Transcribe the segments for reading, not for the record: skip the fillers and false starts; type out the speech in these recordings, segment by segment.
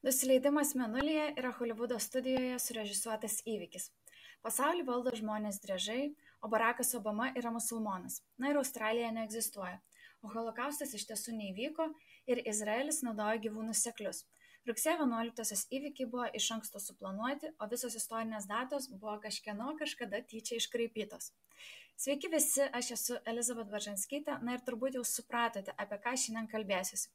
Nusileidimas Mėnulyje yra Holivudo studijoje surežisuotas įvykis. Pasaulį valdo žmonės driežai, o Barackas Obama yra musulmonas. Na ir Australija neegzistuoja. O holokaustas iš tiesų neįvyko ir Izraelis naudoja gyvūnus seklius. Rugsėjo 11-osios įvykiai buvo iš anksto suplanuoti, o visos istorinės datos buvo kažkieno kažkada tyčia iškraipytos. Sveiki visi, aš esu Elizabet Baržanskytė, na ir turbūt jau supratote, apie ką šiandien kalbėsiuosi.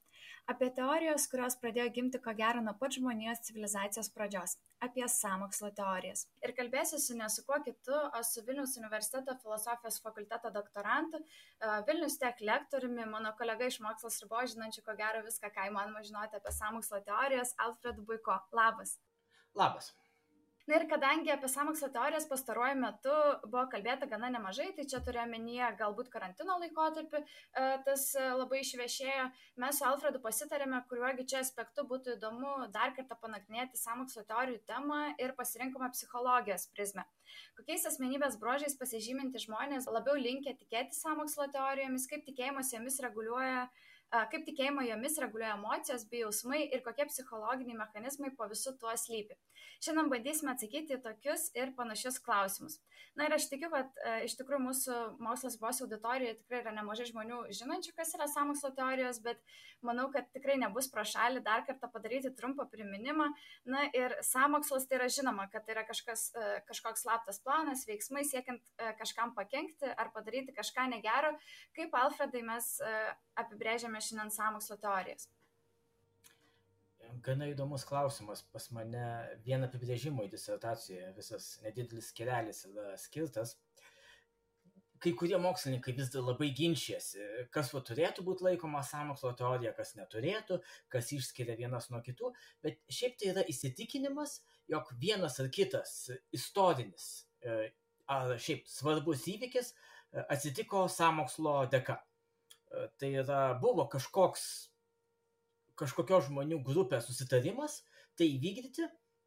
Apie teorijos, kurios pradėjo gimti ko gero nuo pat žmonijos civilizacijos pradžios. Apie sąmokslo teorijas. Ir kalbėsiuosi ne su kuo kitu, o su Vilniaus universiteto filosofijos fakulteto doktorantu, Vilnius Tech lektoriumi, mano kolega iš mokslos ribos, žinančiu ko gero viską, ką įmanoma žinoti apie sąmokslo teorijas, Alfredu Buiko. Labas. Labas. Na ir kadangi apie sąmokslo teorijas pastaruoju metu buvo kalbėta gana nemažai, tai čia turiu omenyje galbūt karantino laikotarpį, tas labai išviešėjo, mes su Alfredu pasitarėme, kuriuogi čia aspektu būtų įdomu dar kartą panagrinėti sąmokslo teorijų temą ir pasirinkome psichologijos prizmę. Kokiais asmenybės bruožais pasižyminti žmonės labiau linkę tikėti sąmokslo teorijomis, kaip tikėjimo jomis reguliuoja emocijos bei jausmai ir kokie psichologiniai mechanizmai po visu tuo slypi. Šiandien bandysime atsakyti į tokius ir panašius klausimus. Na ir aš tikiu, kad iš tikrųjų mūsų mokslos ribos auditorijoje tikrai yra nemažai žmonių žinančių, kas yra sąmokslo teorijos, bet manau, kad tikrai nebus pro šalį dar kartą padaryti trumpą priminimą. Na ir sąmokslas tai yra žinoma, kad tai yra kažkoks slaptas planas, veiksmai siekiant kažkam pakenkti ar padaryti kažką negero. Kaip, Alfredai, mes apibrėžiame šiandien sąmokslo teorijas? Gana įdomus klausimas. Pas mane vien apibrėžimo į disertacijoje visas nedidelis skelelis yra skirtas. Kai kurie mokslininkai vis dar labai ginčijasi, kas turėtų būti laikoma sąmokslo teorija, kas neturėtų, kas išskiria vienas nuo kitų, bet šiaip tai yra įsitikinimas, jog vienas ar kitas istorinis ar šiaip svarbus įvykis atsitiko sąmokslo dėka. Tai yra, buvo kažkokios žmonių grupės susitarimas tai įvykdyti,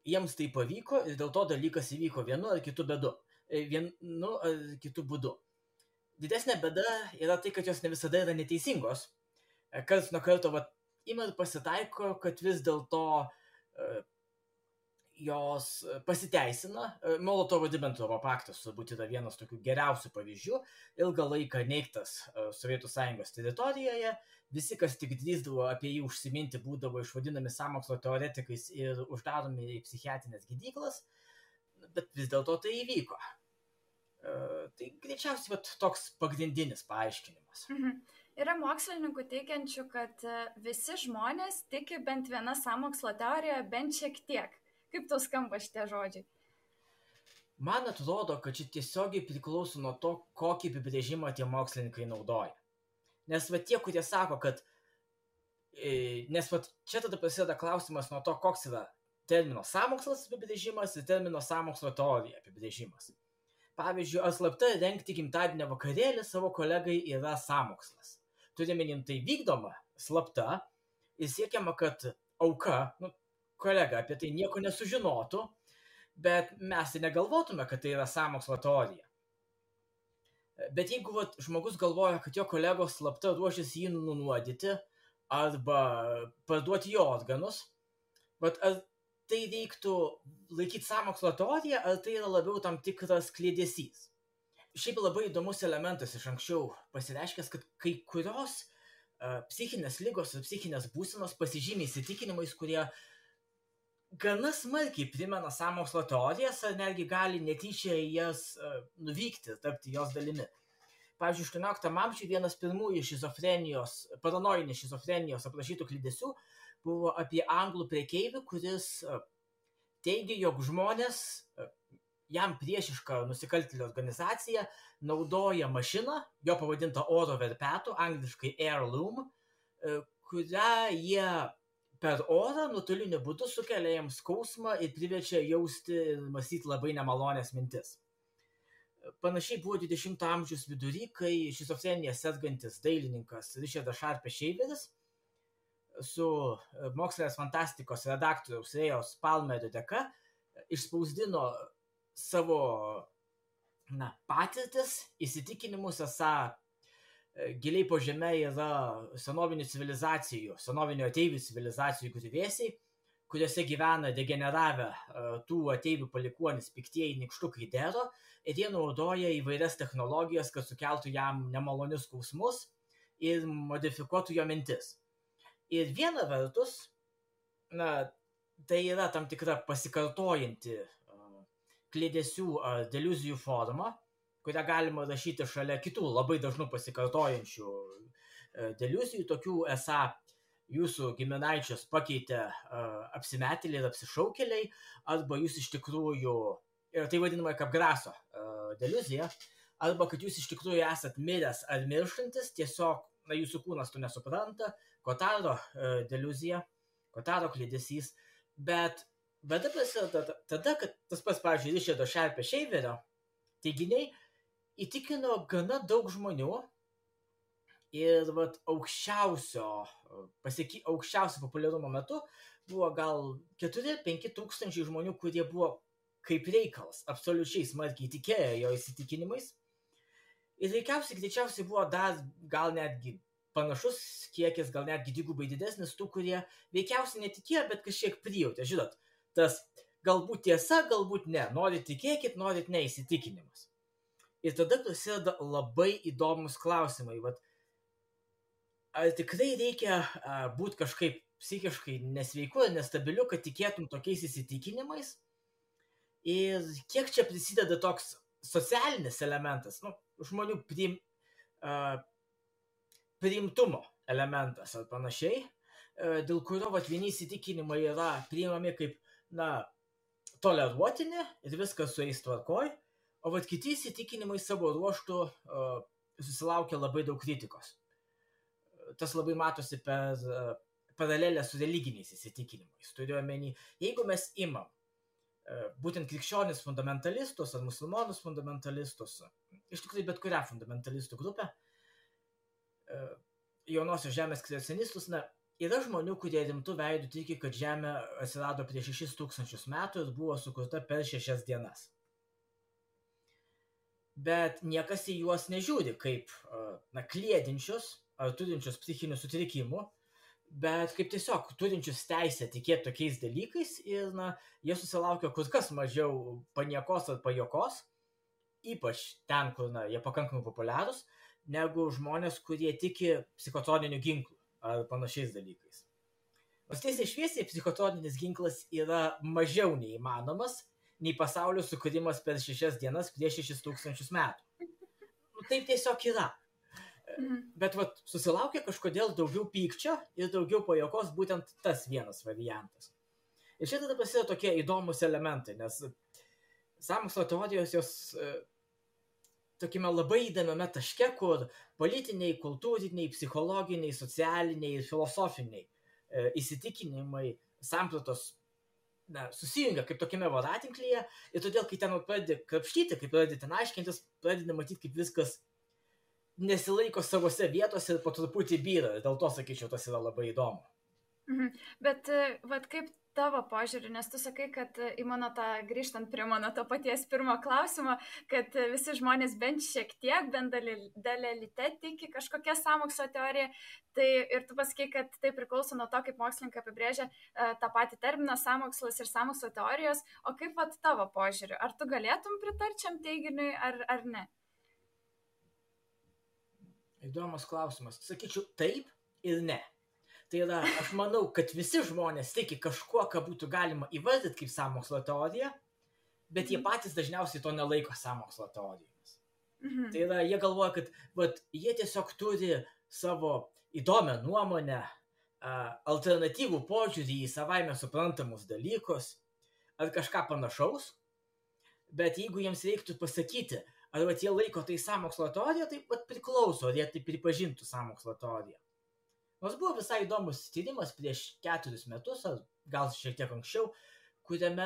jiems tai pavyko ir dėl to dalykas įvyko vienu ar kitu būdu. Didesnė bėda yra tai, kad jos ne visada yra neteisingos. Karts nuo karto ima ir pasitaiko, kad vis dėlto jos pasiteisina. Molotovo-Ribentropo paktas turbūt yra vienas tokių geriausių pavyzdžių. Ilgą laiką neigtas Sovietų Sąjungos teritorijoje. Visi, kas tik drįsdavo apie jį užsiminti, būdavo išvadinami sąmokslo teoretikais ir uždaromi į psichiatrinės gydyklas, bet vis dėlto tai įvyko. Tai greičiausiai toks pagrindinis paaiškinimas. Yra mokslininkų teigiančių, kad visi žmonės tiki bent viena sąmokslo teorija, bent šiek tiek. Kaip tau skamba šitie žodžiai? Man atrodo, kad čia tiesiogiai priklauso nuo to, kokį apibrėžimą tie mokslininkai naudoja. Nes tie, kurie sako, kad... Nes čia tada prasideda klausimas nuo to, koks yra termino sąmokslas apibrėžimas ir termino sąmokslo teorija apibrėžimas. Pavyzdžiui, ar slapta rengti gimtadienio vakarėlį savo kolegai yra sąmokslas. Turime tai vykdoma slapta ir siekiama, kad auka, kolega apie tai nieko nesužinotų, bet mes tai negalvotume, kad tai yra sąmokslo teorija. Bet jeigu žmogus galvoja, kad jo kolegos slapta ruošiasi jį nunuodyti arba parduoti jo organus, ar tai reiktų laikyti sąmokslo teoriją, ar tai yra labiau tam tikras kliedesys? Šiaip labai įdomus elementas iš anksčiau pasireiškęs, kad kai kurios psichinės ligos ir psichinės būsenos pasižymi įsitikinimais, kurie gana smarkiai primena sąmokslo teorijas, ar netgi gali netyčia jas nuvykti, tapti jos dalimi. Pavyzdžiui, 18 amžiuje vienas pirmųjų paranojinės šizofrenijos aprašytų kliedesių buvo apie anglų prekeivių, kuris teigia, jog žmonės, jam priešiška nusikaltėlių organizacija, naudoja mašiną, jo pavadinta oro verpetu, angliškai heirloom, kurią jie per orą nuotoliniu būdu sukelia jiems skausmą ir priverčia jausti ir mąstyti labai nemalonės mintis. Panašiai buvo 20 amžiaus vidury, kai šizofrenija sergantis dailininkas Richardas Sharpes Shaveris su mokslinės fantastikos redaktoriaus Rėjos Palmerio dėka išspausdino savo patirtis, įsitikinimus, esą giliai po žeme yra senovinių ateivių civilizacijų griuvėsiai, kuriuose gyvena degeneravę tų ateivių palikuonis piktieji nykštukai Dero, ir jie naudoja įvairias technologijas, kad sukeltų jam nemalonius skausmus ir modifikuotų jo mintis. Ir viena vertus, tai yra tam tikra pasikartojanti kliedesių ar deliuzijų forma, kurią galima rašyti šalia kitų labai dažnų pasikartojančių deliuzijų, tokių esą jūsų giminaičius pakeitė apsimetėliai ir apsišaukėliai, arba jūs iš tikrųjų, ir tai vadinama kaip graso deliuzija, arba kad jūs iš tikrųjų esat miręs ar mirštantis, tiesiog jūsų kūnas to nesupranta, Kotaro deliuzija, Kotaro kliedesys, bet bėda prasideda tada, kad tas pats, pavyzdžiui, Richardo Sharpe Shaverio teiginiai įtikino gana daug žmonių ir aukščiausio populiarumo metu buvo gal 4-5 tūkstančiai žmonių, kurie buvo kaip reikalas, absoliučiai smarkiai tikėjo jo įsitikinimais. Ir greičiausiai buvo dar gal netgi panašus kiekis, gal netgi dvigubai didesnis tų, kurie veikiausiai netikėjo, bet kažkiek prijautė. Žinot, tas galbūt tiesa, galbūt ne. Norit tikėkit, norit neįsitikinimas. Ir tada prasideda labai įdomus klausimai. Ar tikrai reikia būti kažkaip psichiškai nesveiku ir nestabiliu, kad tikėtum tokiais įsitikinimais? Ir kiek čia prisideda toks socialinis elementas, žmonių priimtumo elementas ar panašiai, dėl kurio vieni įsitikinimai yra priimami kaip, toleruotini ir viskas su jais tvarkoj, o kiti įsitikinimai savo ruožtų susilaukia labai daug kritikos. Tas labai matosi per paralelę su religiniais įsitikinimais. Turiu omeny, jeigu mes imam būtent krikščionis fundamentalistus ar musulmonus fundamentalistus, iš tikrųjų bet kurią fundamentalistų grupę, jaunosios žemės kreacionistus, yra žmonių, kurie rimtų veidų tiki, kad Žemė atsirado prieš 6000 metų ir buvo sukurta per 6 dienas. Bet niekas į juos nežiūri kaip kliedinčius ar turinčius psichinių sutrikimų, bet kaip tiesiog turinčius teisę tikėti tokiais dalykais ir jie susilaukia kur kas mažiau paniekos ar pajokos, ypač ten, kur jie pakankamai populiarūs, negu žmonės, kurie tiki psichotroniniu ginklu ar panašiais dalykais. Nors tiesiai šviesiai psichotroninis ginklas yra mažiau neįmanomas nei pasaulio sukūrimas per 6 dienas prieš 6000 metų. Taip tiesiog yra. Bet susilaukia kažkodėl daugiau pykčio ir daugiau pajokos būtent tas vienas variantas. Ir čia tada prasideda tokie įdomus elementai, nes sąmokslo teorijos jos tokiame labai įdomiame taške, kur politiniai, kultūriniai, psichologiniai, socialiniai ir filosofiniai įsitikinimai, sampratos susijungia kaip tokiame voratinklyje ir todėl, kai ten pradedi krapštyti, kai pradedi ten aiškintis, pradedi matyti, kaip viskas nesilaiko savose vietose ir po truputį byra. Dėl to, sakyčiau, tas yra labai įdomu. Bet kaip tavo požiūrį, nes tu sakai, kad grįžtant prie mano to paties pirmo klausimo, kad visi žmonės bent šiek tiek, bent dalelyte tiki kažkokia sąmokslo teorija, tai ir tu pasakai, kad tai priklauso nuo to, kaip mokslininkai apibrėžia tą patį terminą sąmokslas ir sąmokslo teorijos, o kaip tavo požiūrį, ar tu galėtum pritarčiam teiginiui ar ne? Įdomus klausimas. Sakyčiau taip ir ne. Tai yra, aš manau, kad visi žmonės tiki kažkuo, ką būtų galima įvardyti kaip sąmokslo teoriją, bet jie patys dažniausiai to nelaiko sąmokslo teorijomis. Tai yra, jie galvoja, kad jie tiesiog turi savo įdomią nuomonę, alternatyvų požiūrį į savaime suprantamus dalykus ar kažką panašaus, bet jeigu jiems reiktų pasakyti, ar jie laiko tai sąmokslo teorija, tai priklauso, ar jie tai pripažintų sąmokslo teoriją. Nors buvo visai įdomus tyrimas prieš 4 metus, ar gal šiek tiek anksčiau, kuriame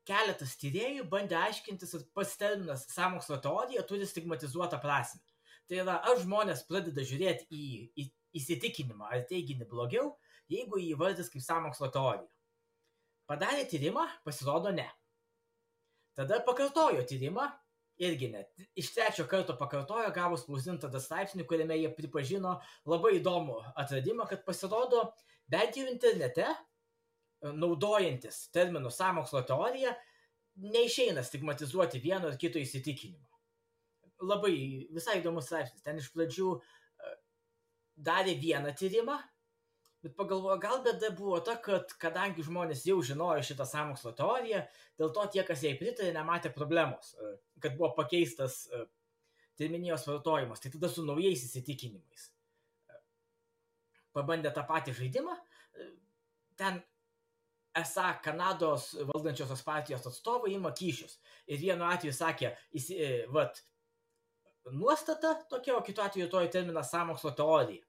keletas tyrėjų bandė aiškintis, ar pats terminas sąmokslo teorija turi stigmatizuotą prasmę. Tai yra, ar žmonės pradeda žiūrėti į įsitikinimą ar teiginį blogiau, jeigu jį įvardys kaip sąmokslo teorija. Padarė tyrimą, pasirodo ne. Tada pakartojo tyrimą, irgi net iš 3 karto pakartojo, gavo spausdintą straipsnį, kuriame jie pripažino labai įdomų atradimą, kad pasirodo, bent jau internete, naudojantis terminų sąmokslo teorija, neišeina stigmatizuoti vieno ar kito įsitikinimo. Labai visai įdomus straipsnis. Ten iš pradžių darė vieną tyrimą, bet pagalvojo, gal bėda buvo ta, kad kadangi žmonės jau žinojo šitą sąmokslo teoriją, dėl to tie, kas jai pritarė, nematė problemos, kad buvo pakeistas terminijos vartojimas. Tai tada su naujais įsitikinimais pabandė tą patį žaidimą. Ten esą Kanados valdančiosios partijos atstovai ima kyšius. Ir vienu atveju sakė, nuostata tokia, o kitu atveju toji terminas sąmokslo teorija.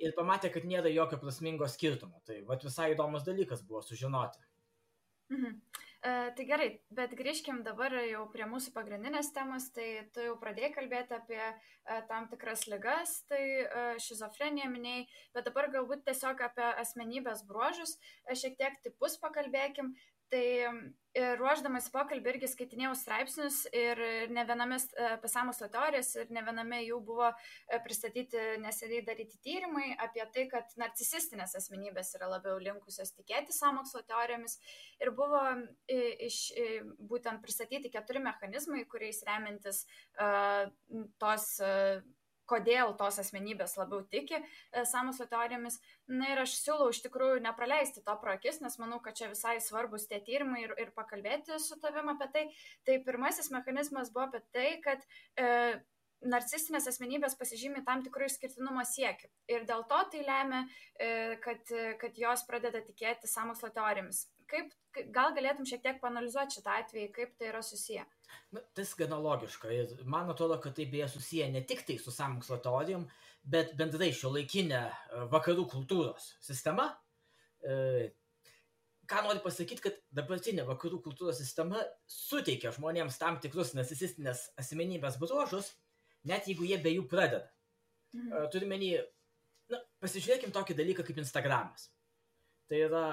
Ir pamatė, kad nėra jokio prasmingo skirtumo. Tai visai įdomus dalykas buvo sužinoti. Tai gerai, bet grįžkim dabar jau prie mūsų pagrindinės temos. Tai tu jau pradėjai kalbėti apie tam tikras ligas, tai šizofreniją minėjai, bet dabar galbūt tiesiog apie asmenybės bruožus, šiek tiek tipus pakalbėkim. Tai ruošdamas pokalbį irgi skaitinėjau straipsnius ir ne viename apie sąmokslo teorijas ir ne viename jų buvo pristatyti neseniai daryti tyrimai apie tai, kad narcisistinės asmenybės yra labiau linkusios tikėti sąmokslo teorijomis ir buvo būtent pristatyti 4 mechanizmai, kuriais remiantis kodėl tos asmenybės labiau tiki sąmokslo teorijomis. Na ir aš siūlau iš tikrųjų nepraleisti to pro akis, nes manau, kad čia visai svarbus tie tyrimai ir pakalbėti su tavim apie tai. Tai pirmasis mechanizmas buvo apie tai, kad narcisistinės asmenybės pasižymi tam tikrų išskirtinumo siekių. Ir dėl to tai lemia, kad jos pradeda tikėti sąmokslo teorijomis. Gal galėtum šiek tiek paanalizuoti šitą atvejį, kaip tai yra susiję? Tai gana logiška ir man atrodo, kad tai beje susiję ne tik tai su sąmokslo teorijom, bet bendrai šiuolaikinė vakarų kultūros sistema. Ką noriu pasakyti, kad dabartinė vakarų kultūros sistema suteikia žmonėms tam tikrus narcisistinės asmenybės bruožus, net jeigu jie be jų pradeda. Turime pasižiūrėkim tokį dalyką kaip Instagramas. Tai yra,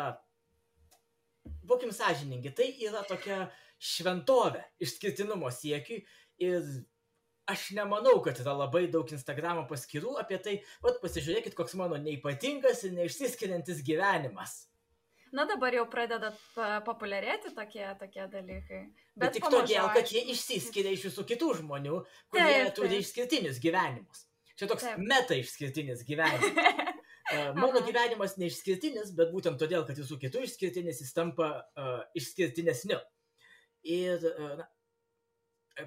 būkim sąžiningi, tai yra tokia šventovė išskirtinumo siekiui ir aš nemanau, kad yra labai daug Instagramo paskyrų apie tai, pasižiūrėkit, koks mano neipatingas ir neišsiskiriantis gyvenimas. Na dabar jau pradeda populiarėti tokie dalykai. Bet tik todėl, kad jie išsiskiria iš visų kitų žmonių, kurie turi išskirtinius gyvenimus. Čia toks meta išskirtinis gyvenimas. Mano gyvenimas neišskirtinis, bet būtent todėl, kad visų kitų išskirtinis, jis tampa išskirtinesniu. Ir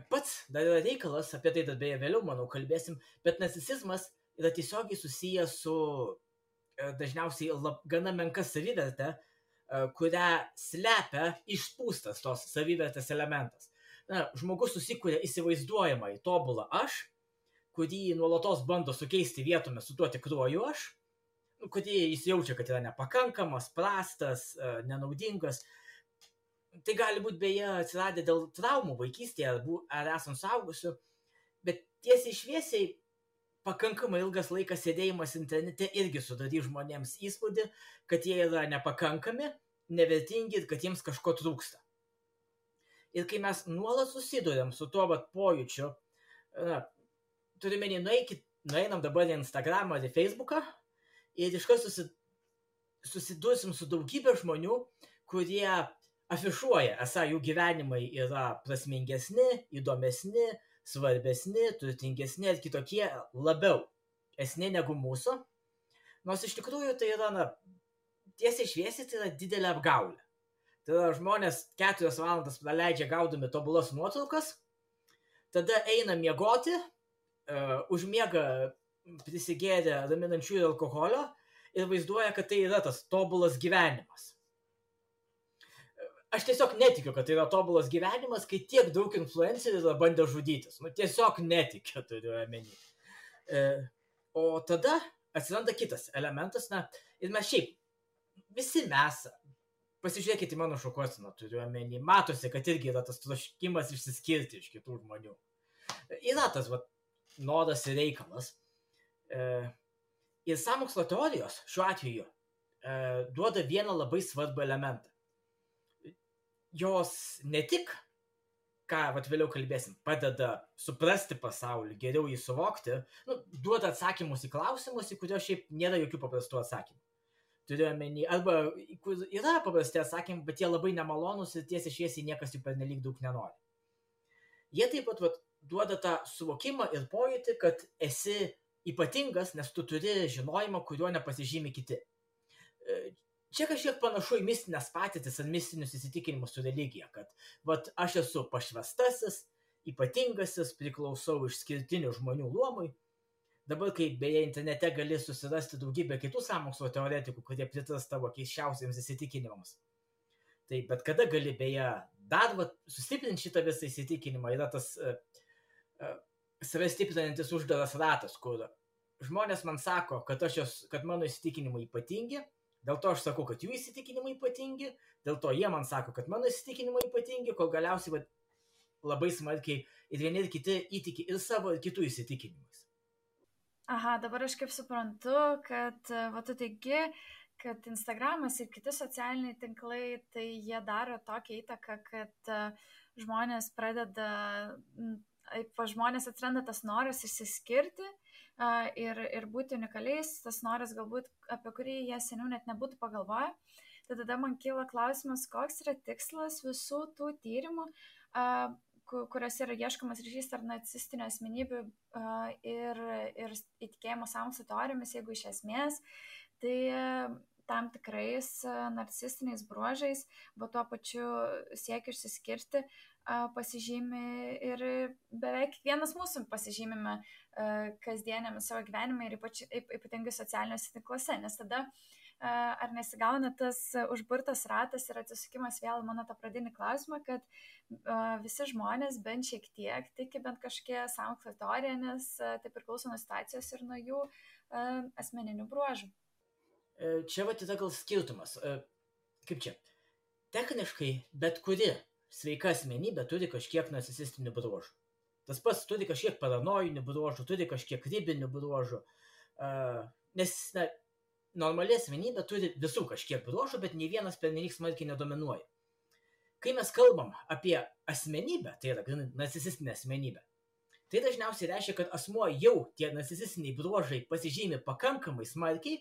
pats dar yra reikalas, apie tai dar beje vėliau, manau, kalbėsim, bet narcisizmas yra tiesiogiai susijęs su dažniausiai gana menka savivertė, kurią slepia išpūstas tos savivertės elementas. Žmogus susikuria įsivaizduojamą į tobulą aš, kurį nuolatos bando sukeisti vietomis su tuo tikruoju aš, kurį jis jaučia, kad yra nepakankamas, prastas, nenaudingas. Tai gali būti beje atsiradę dėl traumų vaikystėje ar esant suaugusiu, bet tiesiai šviesiai pakankamai ilgas laikas sėdėjimas internete irgi sudarys žmonėms įspūdį, kad jie yra nepakankami, nevertingi ir kad jiems kažko trūksta. Ir kai mes nuolat susiduriam su tuo pojūčiu, turime nueinam dabar į Instagramą ar į Facebooką ir iškart susidursim su daugybė žmonių, kurie afišuoja, esą jų gyvenimai yra prasmingesni, įdomesni, svarbesni, turtingesni ir kitokie labiau esni negu mūsų. Nors iš tikrųjų tai yra, tiesiai šviesiai, tai yra didelė apgaulė. Tai yra žmonės 4 valandas praleidžia gaudami tobulas nuotraukas, tada eina miegoti, užmiega prisigėrę raminančiųjų alkoholio ir vaizduoja, kad tai yra tas tobulas gyvenimas. Aš tiesiog netikiu, kad tai yra tobulas gyvenimas, kai tiek daug influencerių yra bandę žudytis. Tiesiog netikiu, turiu omeny. O tada atsiranda kitas elementas, ir mes šiaip, visi mes, pasižiūrėkite į mano šukuoseną, turiu omeny, matosi, kad irgi yra tas troškimas išsiskirti iš kitų žmonių. Yra tas noras ir reikalas. Ir sąmokslo teorijos šiuo atveju duoda vieną labai svarbų elementą. Jos ne tik ką vėliau kalbėsim, padeda suprasti pasaulį, geriau jį suvokti, duoda atsakymus į klausimus, į kuriuos šiaip nėra jokių paprastų atsakymų. Turiu omeny, arba yra paprasti atsakymai, bet jie labai nemalonus ir tiesiai šviesiai niekas jų pernelyg daug nenori. Jie taip pat duoda tą suvokimą ir pojūtį, kad esi ypatingas, nes tu turi žinojimą, kuriuo nepasižymi kiti. Čia kažkiek panašu į mistinės patirtis ar mistinius įsitikinimus su religija, kad aš esu pašvestasis, ypatingasis, priklausau išskirtinių žmonių luomui. Dabar, kai beje internete gali susirasti daugybę kitų sąmokslo teoretikų, kurie pritars tavo keisčiausiams įsitikinimams. Tai bet kada gali beje dar sustiprinti šitą visą įsitikinimą, yra tas save stiprinantis uždaras ratas, kur žmonės man sako, kad mano įsitikinimai ypatingi, dėl to aš sakau, kad jų įsitikinimai ypatingi, dėl to jie man sako, kad mano įsitikinimai ypatingi, kol galiausiai labai smarkiai ir vieni ir kiti įtiki ir savo ir kitų įsitikinimais. Aha, dabar aš kaip suprantu, kad tu teigi, kad Instagramas ir kiti socialiniai tinklai, tai jie daro tokią įtaką, kad žmonės atsiranda tas noras išsiskirti ir būti unikaliais, tas noras galbūt, apie kurį jie seniau net nebūtų pagalvoję. Tai tada man kyla klausimas, koks yra tikslas visų tų tyrimų, kuriuose yra ieškomas ryšys tarp narcisistinių asmenybių ir įtikėjimo sąmokslo teorijomis, jeigu iš esmės, tai tam tikrais narcisistiniais bruožais, bet tuo pačiu siekia išsiskirti, pasižymi ir beveik kiekvienas mūsų pasižymime kasdienėme savo gyvenime ir ypatingai socialiniuose tinkluose, nes tada ar nesigauna tas užburtas ratas ir atsisukimas vėl mano tą pradinį klausimą, kad visi žmonės bent šiek tiek tiki bent kažkokie sąmokslo teorija, nes tai priklauso nuo situacijos ir nuo jų asmeninių bruožų. Čia yra gal skirtumas. Kaip čia? Techniškai bet kuri sveika asmenybė turi kažkiek narcisistinių bruožų. Tas pats turi kažkiek paranojinių bruožų, turi kažkiek ribinių bruožų, nes normali asmenybė turi visų kažkiek bruožų, bet nei vienas pernelyg smarkiai nedominuoja. Kai mes kalbam apie asmenybę, tai yra narcisistinė asmenybė, tai dažniausiai reiškia, kad asmuo jau tie narcisistiniai bruožai pasižymi pakankamai smarkiai,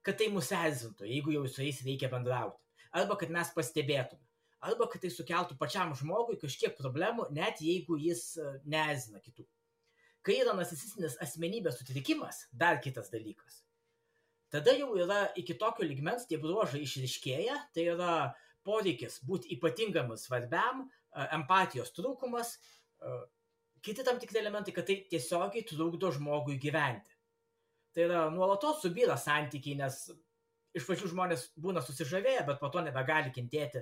kad tai mus erzintų, jeigu jau su jais reikia bendrauti. Arba kad mes pastebėtume. Arba kad tai sukeltų pačiam žmogui kažkiek problemų, net jeigu jis neerzina kitų. Kai yra narcisistinis asmenybės sutrikimas, dar kitas dalykas. Tada jau yra iki tokio lygmens tie bruožai išryškėja, tai yra poreikis būti ypatingam ir svarbiam, empatijos trūkumas, kiti tam tikri elementai, kad tai tiesiogiai trukdo žmogui gyventi. Tai yra nuolatos subyra santykiai, nes iš pačių žmonės būna susižavėję, bet po to nebegali kentėti,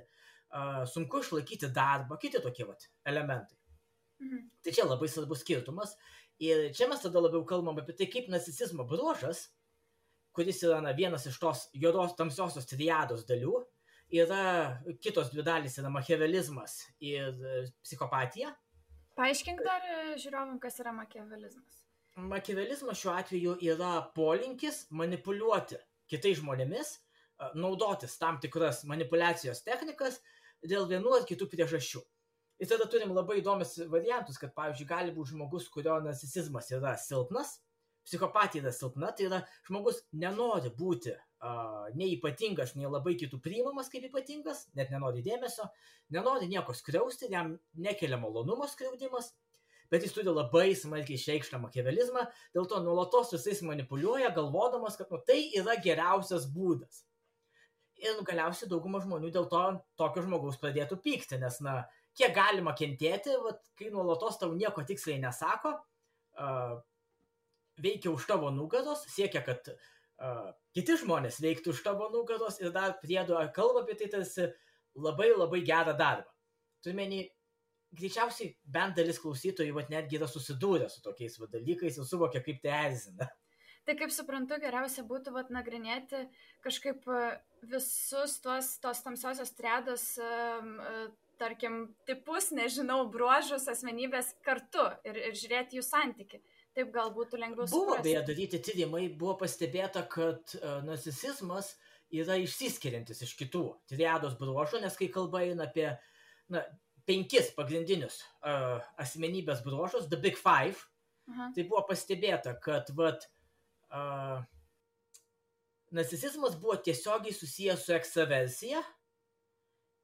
sunku išlaikyti darbą, kiti tokie elementai. Tai čia labai svarbus skirtumas. Ir čia mes tada labiau kalbam apie tai, kaip narcisizmo bruožas, kuris yra vienas iš tos juodos tamsiosios triados dalių, yra kitos dvi dalys, yra machiavelizmas ir psichopatija. Paaiškink dar žiūrovam, kas yra machiavelizmas. Machiavelizmas šiuo atveju yra polinkis manipuliuoti kitais žmonėmis, naudotis tam tikras manipulacijos technikas dėl vienų ar kitų priežasčių. Ir tada turim labai įdomius variantus, kad, pavyzdžiui, gali būti žmogus, kurio narcisizmas yra silpnas, psichopatija yra silpna, tai yra žmogus nenori būti nei ypatingas, nei labai kitų priimamas kaip ypatingas, net nenori dėmesio, nenori nieko skriausti, jam nekelia malonumo skriaudimas, bet jis turi labai smarkiai išreikštą machiavelizmą, dėl to nuolatos visais manipuliuoja, galvodamas, kad tai yra geriausias būdas. Ir galiausiai dauguma žmonių dėl to tokio žmogaus pradėtų pykti, nes, kiek galima kentėti, kai nuolatos tau nieko tiksliai nesako, veikia už tavo nugaros, siekia, kad kiti žmonės veiktų už tavo nugaros ir dar priedo kalba apie tai tarsi labai labai gerą darbą. Turime, greičiausiai bent dalis klausytojų netgi yra susidūrę su tokiais dalykais ir suvokia, kaip tai erzina. Tai kaip suprantu, geriausia būtų nagrinėti kažkaip visus tos tamsiosios triados, tarkim, tipus, nežinau, bruožus, asmenybės kartu ir žiūrėti jų santykį. Taip gal būtų lengviau suprasti. Buvo beje daryti tyrimai, buvo pastebėta, kad narcisizmas yra išsiskiriantis iš kitų triados bruožų, nes kai kalba eina apie 5 pagrindinius asmenybės bruožus, The Big Five, tai buvo pastebėta, kad narcisizmas buvo tiesiogiai susijęs su ekstraversija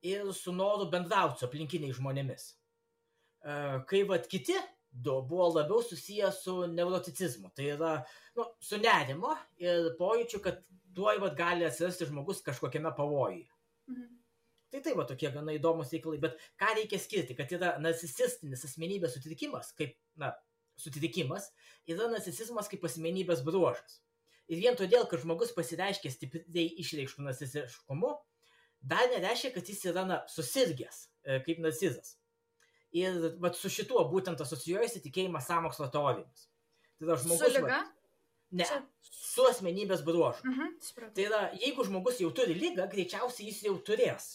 ir su noru bendrauti su aplinkiniais žmonėmis. Kai kiti du buvo labiau susijęs su neuroticizmu, tai yra su nerimo ir pojūčiu, kad tuoj gali atsirasti žmogus kažkokiame pavojuje. Tai tokie gana įdomus reikalai, bet ką reikia skirti, kad yra narcisistinis asmenybės sutrikimas, sutrikimas, yra narcisizmas kaip asmenybės bruožas. Ir vien todėl, kad žmogus pasireiškia stipriai išreikštų narcisiškumu, dar nereiškia, kad jis yra susirgęs kaip narcizas. Ir su šituo būtent asocijuojasi tikėjimas sąmokslo teorijomis. Tai yra žmogus... Su liga? Ne, su asmenybės bruožu. Tai yra, jeigu žmogus jau turi ligą, greičiausiai jis jau turės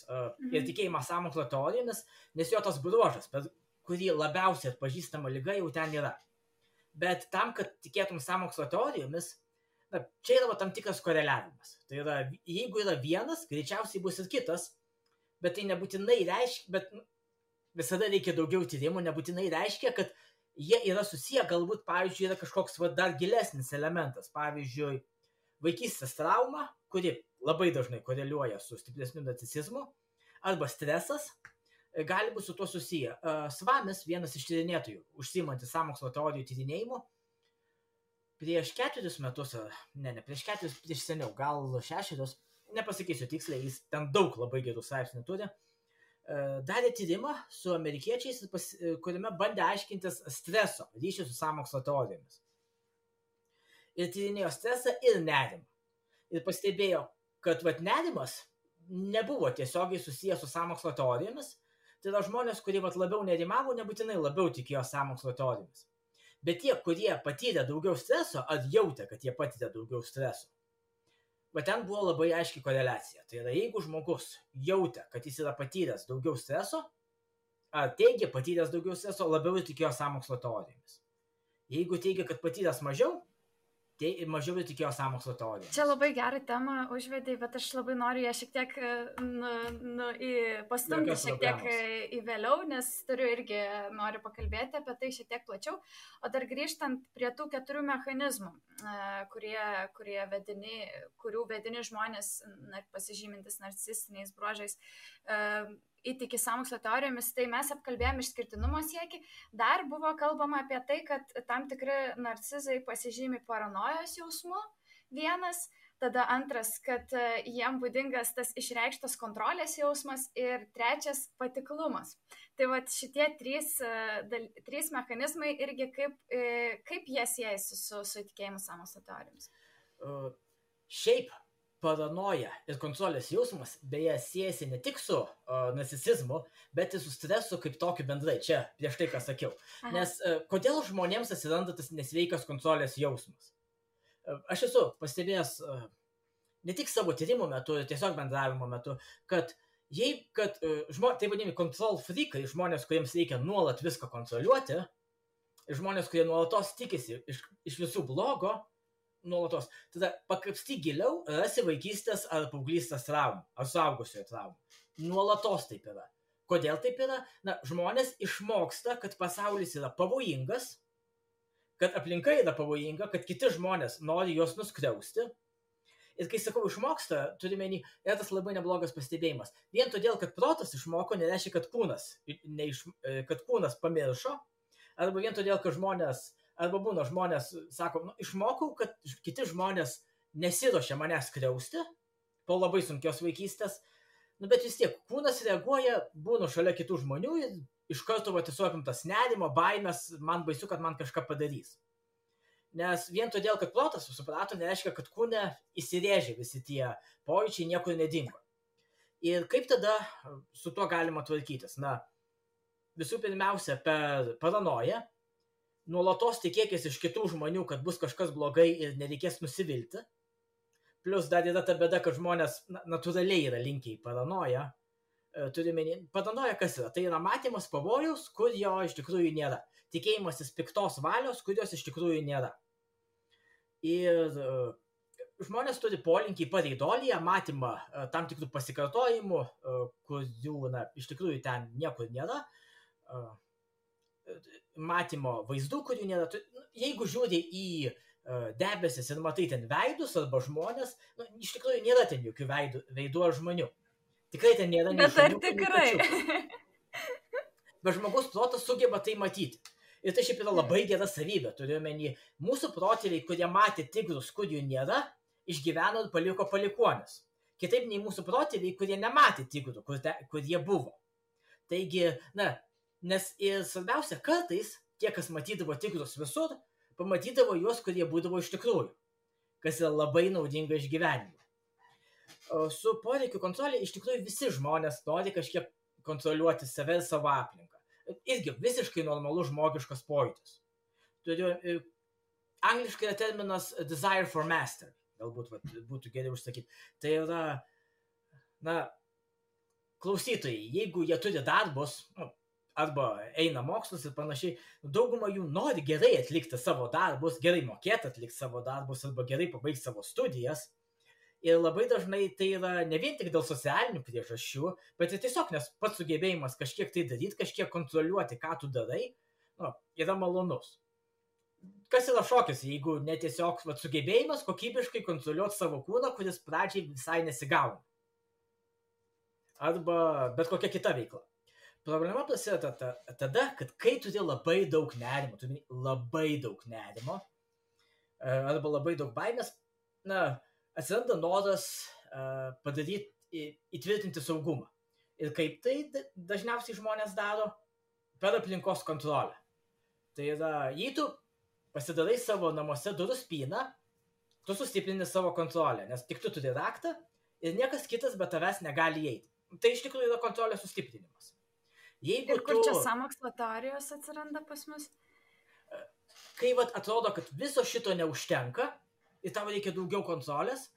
ir tikėjimas sąmokslo teorijomis, nes jo tas bruožas, per kurį labiausiai atpažįstama liga, jau ten yra. Bet tam, kad tikėtum sąmokslo teorijomis, čia yra tam tikras koreliavimas. Tai yra, jeigu yra vienas, greičiausiai bus ir kitas, bet tai nebūtinai reiškia, bet visada reikia daugiau tyrimų, nebūtinai reiškia, kad jie yra susiję, galbūt, pavyzdžiui, yra kažkoks dar gilesnis elementas. Pavyzdžiui, vaikystės trauma, kuri labai dažnai koreliuoja su stipresniu narcisizmu, arba stresas, gali būti su tuo susiję. Svamis, vienas iš tyrinėtojų, užsiimantis sąmokslo teorijų tyrinėjimu, prieš 4 metus, prieš seniau, gal 6, nepasakysiu tiksliai, jis ten daug labai gerų straipsnių turi, darė tyrimą su amerikiečiais, kuriame bandė aiškintis streso ryšį su sąmokslo teorijomis. Ir tyrinėjo stresą ir nerimą. Ir pastebėjo, kad nerimas nebuvo tiesiogiai susijęs su sąmokslo teorijomis. Tai yra žmonės, kurie labiau nerimavo, nebūtinai labiau tikėjo sąmokslo teorijomis. Bet tie, kurie patyrė daugiau streso, ar jautė, kad jie patyrė daugiau streso, bet ten buvo labai aiški koreliacija. Tai yra, jeigu žmogus jautė, kad jis yra patyręs daugiau streso, ar teigia patyręs daugiau streso, labiau tikėjo sąmokslo teorijomis. Jeigu teigia, kad patyręs mažiau, tai mažiau tikėjo sąmokslo teorijomis. Čia labai gerą temą užvedai, bet aš labai noriu ją šiek tiek pastumti šiek tiek į vėliau, nes noriu pakalbėti apie tai šiek tiek plačiau. O dar grįžtant prie tų 4 mechanizmų, kurių vedini žmonės pasižymintis narcisistiniais bruožais įtiki sąmokslo teorijomis, tai mes apkalbėjome išskirtinumo siekį. Dar buvo kalbama apie tai, kad tam tikri narcizai pasižymi paranojos jausmu, vienas, tada antras, kad jiem būdingas tas išreikštas kontrolės jausmas ir trečias patiklumas. Tai šitie 3 mechanizmai irgi kaip jie siejasi su įtikėjimu sąmokslo teorijomis. Šiaip paranoja ir kontrolės jausmas beje siejasi ne tik su narcisizmu, bet ir su stresu kaip tokiu bendrai, čia prieš tai, ką sakiau. Nes kodėl žmonėms atsiranda tas nesveikas kontrolės jausmas? Aš esu pastebėjęs ne tik savo tyrimų metu, tiesiog bendravimo metu, kad tai vadinami control freakai, žmonės, kuriems reikia nuolat viską kontroliuoti, žmonės, kurie nuolatos tikisi iš visų blogo, nuolatos. Tada pakapsty giliau, rasi vaikystės ar paauglystės traumų, ar suaugusiojo traumų. Nuolatos taip yra. Kodėl taip yra? Žmonės išmoksta, kad pasaulis yra pavojingas, kad aplinka yra pavojinga, kad kiti žmonės nori juos nuskriausti. Ir kai sakau išmoksta, turime yra tas labai neblogas pastebėjimas. Vien todėl, kad protas išmoko, nereiškia, kad kūnas pamiršo, arba vien todėl, kad žmonės sako, išmokau, kad kiti žmonės nesiruošia manęs skriausti po labai sunkios vaikystės, bet vis tiek kūnas reaguoja, būnu šalia kitų žmonių ir iš karto tiesiog tas nerimo, baimės, man baisu, kad man kažką padarys. Nes vien todėl, kad protas suprato, nereiškia, kad kūne įsirėžė visi tie pojūčiai, niekur nedingo. Ir kaip tada su tuo galima tvarkytis? Visų pirmiausia, per paranoją, nuolatos tikėkis iš kitų žmonių, kad bus kažkas blogai ir nereikės nusivilti. Plus dar yra ta bėda, kad žmonės natūraliai yra linkę į paranoją. Paranoja kas yra? Tai yra matymas pavojaus, kur jo iš tikrųjų nėra. Tikėjimasis piktos valios, kurios iš tikrųjų nėra. Ir žmonės turi polinkį pareidolį, matymą tam tikrų pasikartojimų, kurių, iš tikrųjų ten niekur nėra, matymo vaizdų, kurių nėra. Jeigu žiūri į debesis ir matai ten veidus arba žmonės, iš tikrųjų nėra ten jokių veidų ar žmonių. Tikrai ten nėra nei Bet ar šuniukų, nei tikrai? kačiukų. Bet žmogus protas sugeba tai matyti. Ir tai šiaip yra labai gera savybė. Turiuomenį, mūsų protėviai, kurie matė tigrus, kurių nėra, išgyveno ir paliko palikuonis. Kitaip nei mūsų protėviai, kurie nematė tigrų, kur jie buvo. Taigi, nes ir svarbiausia, kartais tie, kas matydavo tigrus visur, pamatydavo juos, kurie būdavo iš tikrųjų, kas yra labai naudinga išgyvenimui. Su poreikių kontrolė iš tikrųjų visi žmonės nori kažkiek kontroliuoti save ir savo aplinką. Irgi visiškai normalus žmogiškas pojūtis. Angliškai yra terminas desire for mastery. Galbūt būtų geriau užsakyti. Tai yra, klausytojai, jeigu jie turi darbus, arba eina mokslus ir panašiai, dauguma jų nori gerai atlikti savo darbus, gerai mokėti atlikti savo darbus arba gerai pabaigti savo studijas. Ir labai dažnai tai yra ne vien tik dėl socialinių priežasčių, bet ir tiesiog, nes pats sugebėjimas kažkiek tai daryti, kažkiek kontroliuoti, ką tu darai, yra malonus. Kas yra šokis, jeigu netiesiog sugebėjimas kokybiškai kontroliuoti savo kūną, kuris pradžiai visai nesigauna. Arba bet kokia kita veikla. Problema prasideda tada, kad kai turi labai daug nerimo, arba labai daug baimės, atsiranda noras įtvirtinti saugumą. Ir kaip tai dažniausiai žmonės daro? Per aplinkos kontrolę. Tai yra, jei tu pasidarai savo namuose durų spyną, tu sustiprini savo kontrolę, nes tik tu turi raktą ir niekas kitas be tavęs negali įeiti. Tai iš tikrųjų yra kontrolės sustiprinimas. Ir kur čia sąmokslo teorijos atsiranda pas mus? Kai atrodo, kad viso šito neužtenka, ir tau reikia daugiau kontrolės,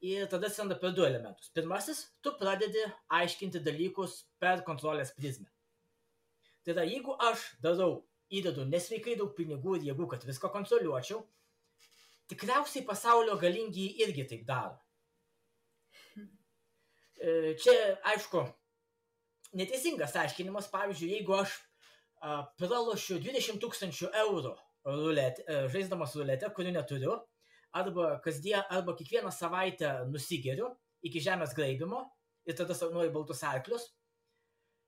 ir tada atsiranda per du elementus. Pirmasis, tu pradedi aiškinti dalykus per kontrolės prizmę. Tai yra, jeigu aš įdedu nesveikai daug pinigų ir jėgų, kad viską kontroliuočiau, tikriausiai pasaulio galingi irgi taip daro. Čia, aišku, neteisingas aiškinimas, pavyzdžiui, jeigu aš pralošiu 20 000 eurų žaisdamas ruletę, kurių neturiu, arba kiekvieną savaitę nusigeriu iki žemės graibimo ir tada sapnuoju baltus arklius.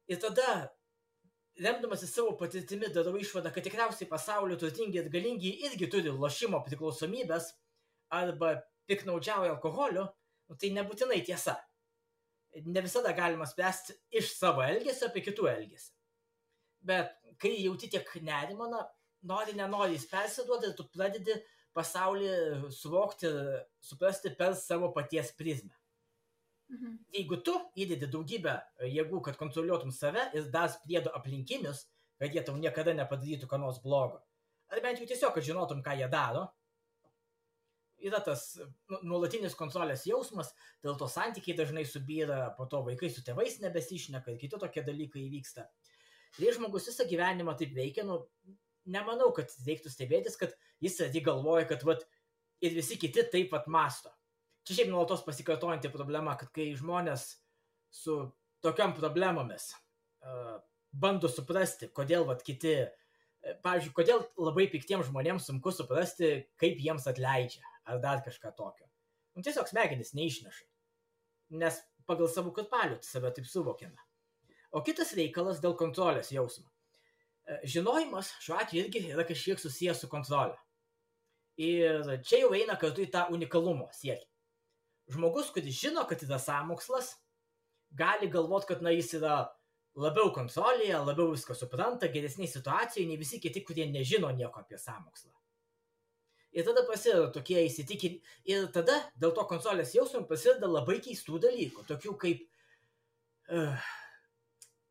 Ir tada, remdamasi savo patirtimi, darau išvadą, kad tikriausiai pasaulio turtingi ir galingi irgi turi lošimo priklausomybės arba piknaudžiauja alkoholiu, tai nebūtinai tiesa. Ne visada galima spręsti iš savo elgesio apie kitų elgesį. Bet kai jauti tiek nerimą, nenori jis persiduoti ir tu pradedi pasaulį suvokti ir suprasti per savo paties prizmę. Jeigu tu įdedi daugybę jėgų, kad kontroliuotum save ir dar priedo aplinkinius, kad jie tau niekada nepadarytų ką nors blogo, ar bent jau tiesiog, kad žinotum, ką jie daro, yra tas nuolatinis kontrolės jausmas, dėl to santykiai dažnai subyra, po to vaikai su tėvais nebesišneka ir kiti tokie dalykai įvyksta. Ir žmogus visą gyvenimą taip veikia, nemanau, kad reiktų stebėtis, kad jis galvoja, kad ir visi kiti taip masto. Čia šiaip nuolatos pasikartojanti problema, kad kai žmonės su tokiam problemomis bando suprasti, kodėl kiti, pavyzdžiui, kodėl labai piktiems žmonėms sunku suprasti, kaip jiems atleidžia, ar dar kažką tokio. Tiesiog smegenys neišneša, nes pagal savo kurpalių save taip suvokiame. O kitas reikalas dėl kontrolės jausmo. Žinojimas šiuo atveju irgi yra kažkiek susijęs su kontrolė. Ir čia jau eina kartu į tą unikalumo siekį. Žmogus, kuris žino, kad yra sąmokslas, gali galvoti, kad jis yra labiau kontrolėje, labiau viską supranta, geresniai situacijoje, nei visi kiti, kurie nežino nieko apie sąmokslą. Ir tada prasideda tokie įsitikinimai. Ir tada dėl to kontrolės jausmo prasideda labai keistų dalykų, tokių kaip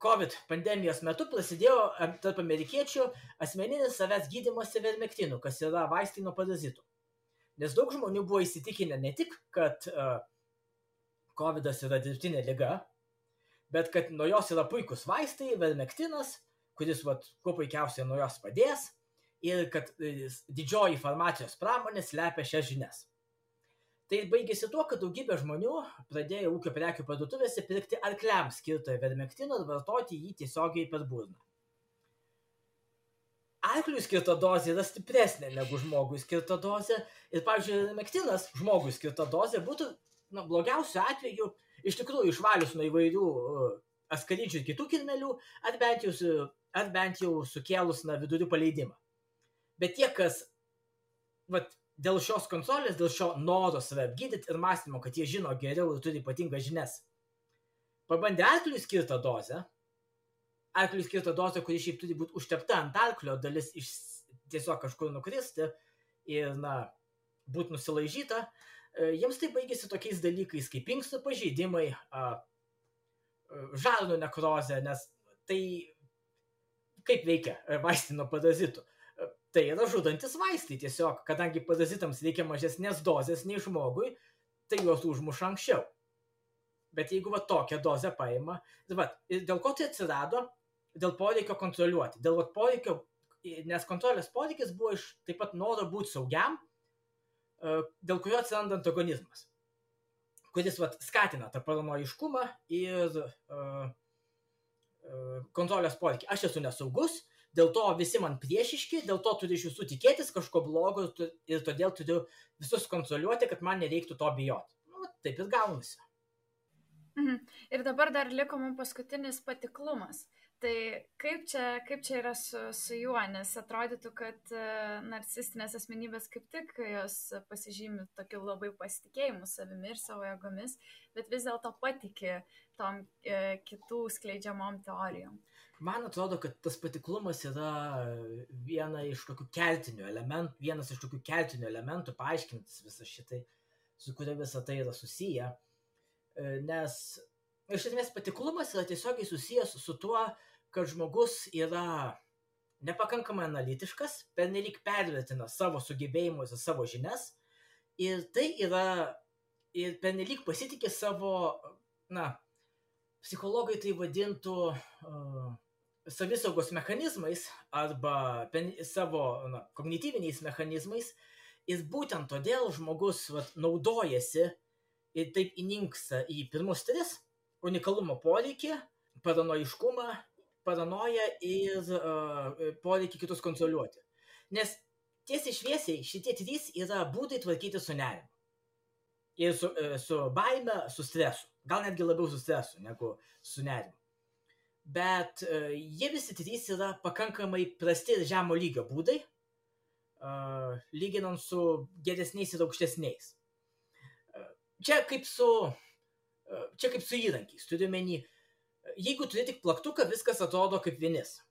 COVID pandemijos metu prasidėjo tarp amerikiečių asmeninis savęs gydymas ivermektinų, kas yra vaistai nuo parazitų. Nes daug žmonių buvo įsitikinę ne tik, kad COVIDas yra dirbtinė liga, bet kad nuo jos yra puikus vaistai, ivermektinas, kuris kuo puikiausiai nuo jos padės, ir kad didžioji farmacijos pramonė slepia šias žinias. Tai baigėsi tuo, kad daugybė žmonių pradėjo ūkio prekių parduotuvėse pirkti arkliams skirtą ivermektino ir vartoti jį tiesiogiai per burną. Arkliui skirta dozė yra stipresnė negu žmogui skirta dozė ir, pavyzdžiui, ivermektinas žmogui skirta dozė būtų, blogiausiu atveju, iš tikrųjų išvalius nuo įvairių askarydžių ir kitų kirmelių, ar bent jau sukėlus vidurių paleidimą. Bet tie, kas dėl šios kontrolės, dėl šio noro save apgydyti ir mąstymo, kad jie žino geriau ir turi ypatingas žinias, pabandė arkliui skirtą dozę, kuri šiaip turi būti užtepta ant arklio, dalis tiesiog kažkur nukristi ir, būti nusilaižyta, jiems tai baigėsi tokiais dalykais kaip inkstų pažeidimai, žarnų nekrozė, nes tai kaip veikia vaistai nuo parazitų. Tai yra žudantis vaistai tiesiog, kadangi parazitams reikia mažesnės dozės nei žmogui, tai juos užmuša anksčiau. Bet jeigu tokią dozę paima, ir dėl ko tai atsirado? Dėl poreikio kontroliuoti. Nes kontrolės poreikis buvo iš taip pat noro būti saugiam, dėl kurio atsiranda antagonizmas, kuris skatina tą paranojiškumą ir kontrolės poreikį. Aš esu nesaugus, dėl to visi man priešiški, dėl to turiu iš jūsų tikėtis kažko blogo ir todėl turiu visus kontroliuoti, kad man nereiktų to bijoti. Taip ir gaunasi. Ir dabar dar liko mums paskutinis patiklumas. Tai kaip čia yra su juo, nes atrodytų, kad narcisistinės asmenybės kaip tik jos pasižymi tokiu labai pasitikėjimu savimi ir savo jėgomis, bet vis dėlto patiki tom kitų skleidžiamom teorijom. Man atrodo, kad tas patiklumas yra vienas iš tokių kertinių elementų paaiškintis visą šitai, su kuria visą tai yra susiję. Nes iš esmės patiklumas yra tiesiogiai susijęs su tuo, kad žmogus yra nepakankamai analitiškas, pernelyg pervertina savo sugebėjimus ir savo žinias, ir tai yra ir pernelyg pasitikė savo, psichologai tai vadintų savisaugos mechanizmais arba savo kognityviniais mechanizmais, ir būtent todėl žmogus naudojasi ir taip įninksta į pirmus tris – unikalumo poreikį, paranojiškumą, paranoją ir poreikį kitus kontroliuoti. Nes tiesiai šviesiai šitie trys yra būdai tvarkyti su nerimu. Ir su baime, su stresu. Gal netgi labiau su stresu negu su nerimu. Bet jie visi trys yra pakankamai prasti ir žemo lygio būdai, lyginant su geresniais ir aukštesniais. Čia kaip su įrankiais, turiu menį, jeigu turi tik plaktuką, viskas atrodo kaip vinis.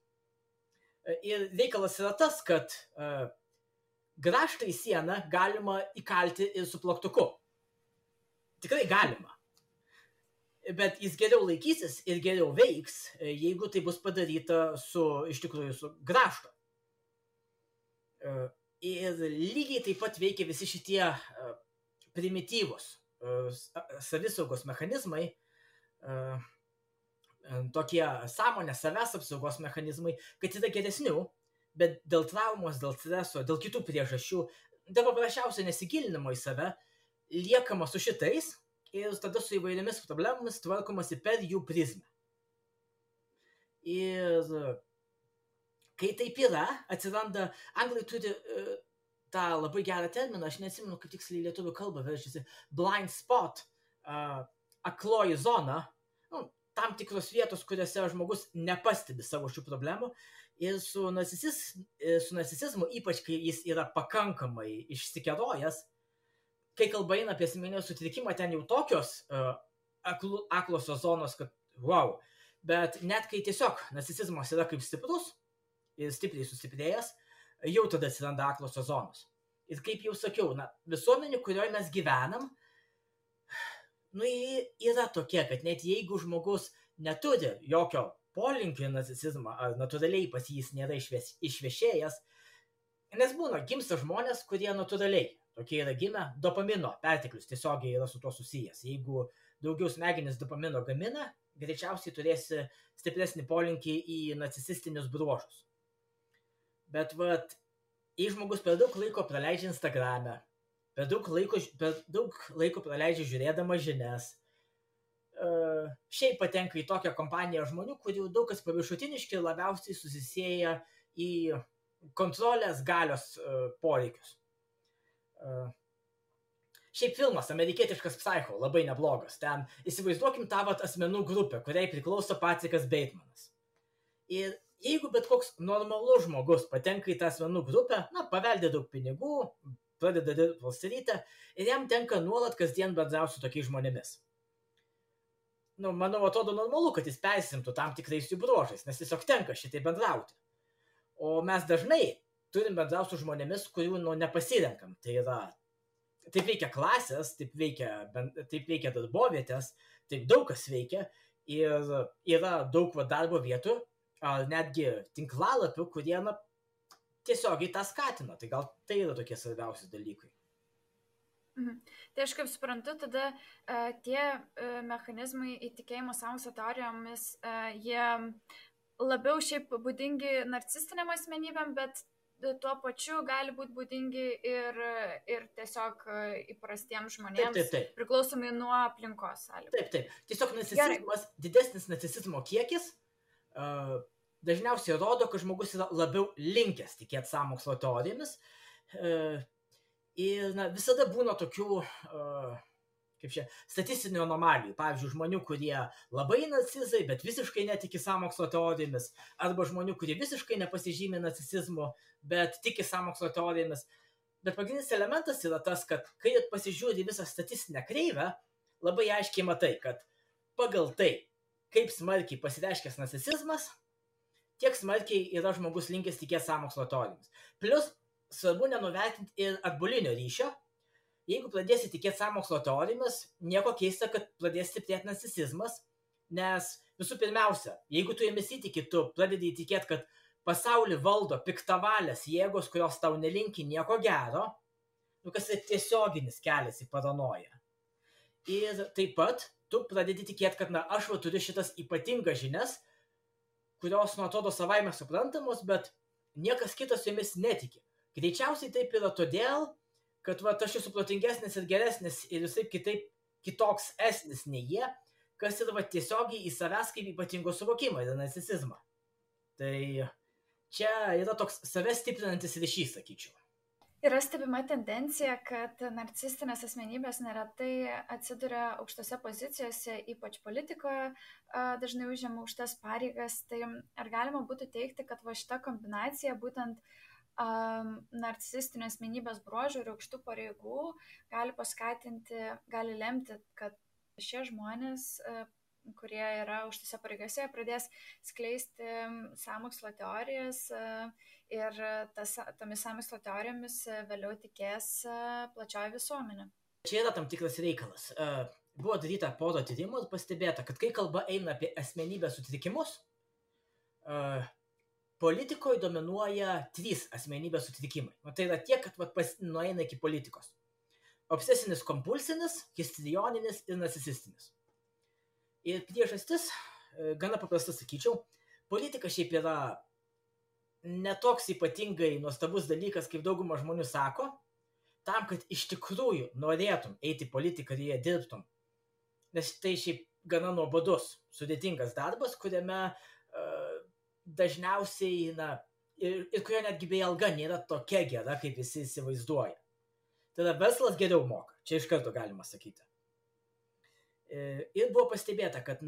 Ir reikalas yra tas, kad grąžtą į sieną galima įkalti ir su plaktuku. Tikrai galima. Bet jis geriau laikysis ir geriau veiks, jeigu tai bus padaryta iš tikrųjų su grąžtu. Ir lygiai taip pat veikia visi šitie primityvūs savisaugos mechanizmai, tokie sąmonės savęs apsaugos mechanizmai, kad yra geresnių, bet dėl traumos, dėl streso, dėl kitų priežasčių, dėl paprasčiausio nesigilinimo į save, liekama su šitais ir tada su įvairiomis problemomis tvarkomasi per jų prizmę. Ir kai taip yra, atsiranda, anglai turi tą labai gerą terminą, aš neatsimenu, kaip tiksliai lietuvių kalba verčiasi, blind spot, akloji zona, tam tikros vietos, kuriuose žmogus nepastebi savo šių problemų, ir su narcisizmu, ypač kai jis yra pakankamai išsikerojęs, kai kalba eina apie asmeninio sutrikimą, ten jau tokios aklosios zonos, kad wow, bet net kai tiesiog narcisizmas yra kaip stiprus ir stipriai sustiprėjęs, jau tada atsiranda aklosios zonos. Ir kaip jau sakiau, visuomenė, kurioje mes gyvenam, yra tokia, kad net jeigu žmogus neturi jokio polinkio į narcisizmą, ar natūraliai pas jis nėra išvešėjęs, nes būna gimsta žmonės, kurie natūraliai, tokie yra gimę, dopamino perteklius tiesiogiai yra su tuo susijęs. Jeigu daugiau smegenis dopamino gamina, greičiausiai turėsi stipresnį polinkį į narcisistinius bruožus. Bet jei žmogus per daug laiko praleidžia Instagrame, per daug laiko praleidžia žiūrėdama žinias. Šiaip patenka į tokią kompaniją žmonių, kurių daug kas paviršutiniški ir labiausiai susisieja į kontrolės galios poreikius. Šiaip filmas, amerikietiškas Psycho, labai neblogas. Ten įsivaizduokim tą asmenų grupę, kuriai priklauso Patrikas Batemanas. Ir jeigu bet koks normalus žmogus patenka į tą asmenų grupę, paveldė daug pinigų, pradeda dirbti Wall Street'e ir jam tenka nuolat kasdien bendrauti su tokiais žmonėmis. Manau, atrodo normalu, kad jis persimtų tam tikrais jų bruožais, nes tiesiog tenka šitai bendrauti. O mes dažnai turim bendrauti su žmonėmis, kurių nepasirenkam. Tai yra, taip veikia klasės, taip veikia darbovietės, taip daug kas veikia ir yra daug darbo vietų, ar netgi tinklalapių, kurie tiesiogiai tą skatina. Tai gal tai yra tokie svarbiausi dalykai. Tai aš kaip suprantu, tada tie mechanizmai įtikėjimo sąmokslo teorijomis, jie labiau šiaip būdingi narcisistiniam asmenybėm, bet tuo pačiu gali būti būdingi ir tiesiog įprastiems žmonėms, taip. Priklausomai nuo aplinkos sąlygų. Taip. Tiesiog narcisizmas, didesnis narcisizmo kiekis dažniausiai rodo, kad žmogus yra labiau linkęs tikėti sąmokslo teorijomis. Ir visada būna tokių statistinių anomalijų. Pavyzdžiui, žmonių, kurie labai narcizai, bet visiškai netiki sąmokslo teorijomis, arba žmonių, kurie visiškai nepasižymė narcisizmu, bet tiki sąmokslo teorijomis. Bet pagrindinis elementas yra tas, kad kai pasižiūri visą statistinę kreivę, labai aiškiai matai, kad pagal tai, kaip smarkiai pasireiškęs narcisizmas, tiek smarkiai yra žmogus linkęs tikėti sąmokslo teorijomis. Plius, svarbu nenuvertinti ir atbulinio ryšio. Jeigu pradėsi tikėti sąmokslo teorijomis, nieko keista, kad pradės stiprėti narcisizmas, nes visų pirmiausia, jeigu tu jomis įtiki, tu pradedi įtikėti, kad pasaulį valdo piktavalės jėgos, kurios tau nelinki nieko gero, kas yra tiesioginis kelias į paranoją. Ir taip pat tu pradedi tikėti, kad aš turiu šitas ypatingas žinias, kurios atrodo savaime suprantamos, bet niekas kitas jomis netiki. Greičiausiai taip yra todėl, kad aš esu protingesnis ir geresnis ir visai kitoks esnis nei jie, kas yra tiesiogiai į savęs kaip ypatingo suvokimą ir narcisizmą. Tai čia yra toks savęs stiprinantis ryšys, sakyčiau. Yra stebima tendencija, kad narcisistinės asmenybės neretai atsiduria aukštose pozicijose, ypač politikoje, dažnai užima aukštas pareigas. Tai ar galima būtų teigti, kad šita kombinacija būtent narcisistinio asmenybės bruožų ir aukštų pareigų gali lemti, kad šie žmonės, kurie yra aukštose pareigose, pradės skleisti sąmokslo teorijas ir tomis sąmokslo teorijomis vėliau tikės plačioji visuomenė. Čia yra tam tikras reikalas. Buvo daryta pora tyrimų ir pastebėta, kad kai kalba eina apie asmenybės sutrikimus, politikoje dominuoja 3 asmenybės sutrikimai. Tai yra tiek, kad nueina iki politikos. Obsesinis kompulsinis, histrioninis ir narcisistinis. Ir priežastis, gana paprasta sakyčiau, politika šiaip yra netoks ypatingai nuostabus dalykas, kaip dauguma žmonių sako, tam, kad iš tikrųjų norėtum eiti į politiką ir jie dirbtum. Nes tai šiaip gana nuobodus, sudėtingas darbas, kuriame dažniausiai, ir kurio netgi beje alga nėra tokia gera, kaip visi įsivaizduoja. Tada verslas geriau moka, čia iš karto galima sakyti. Ir buvo pastebėta, kad,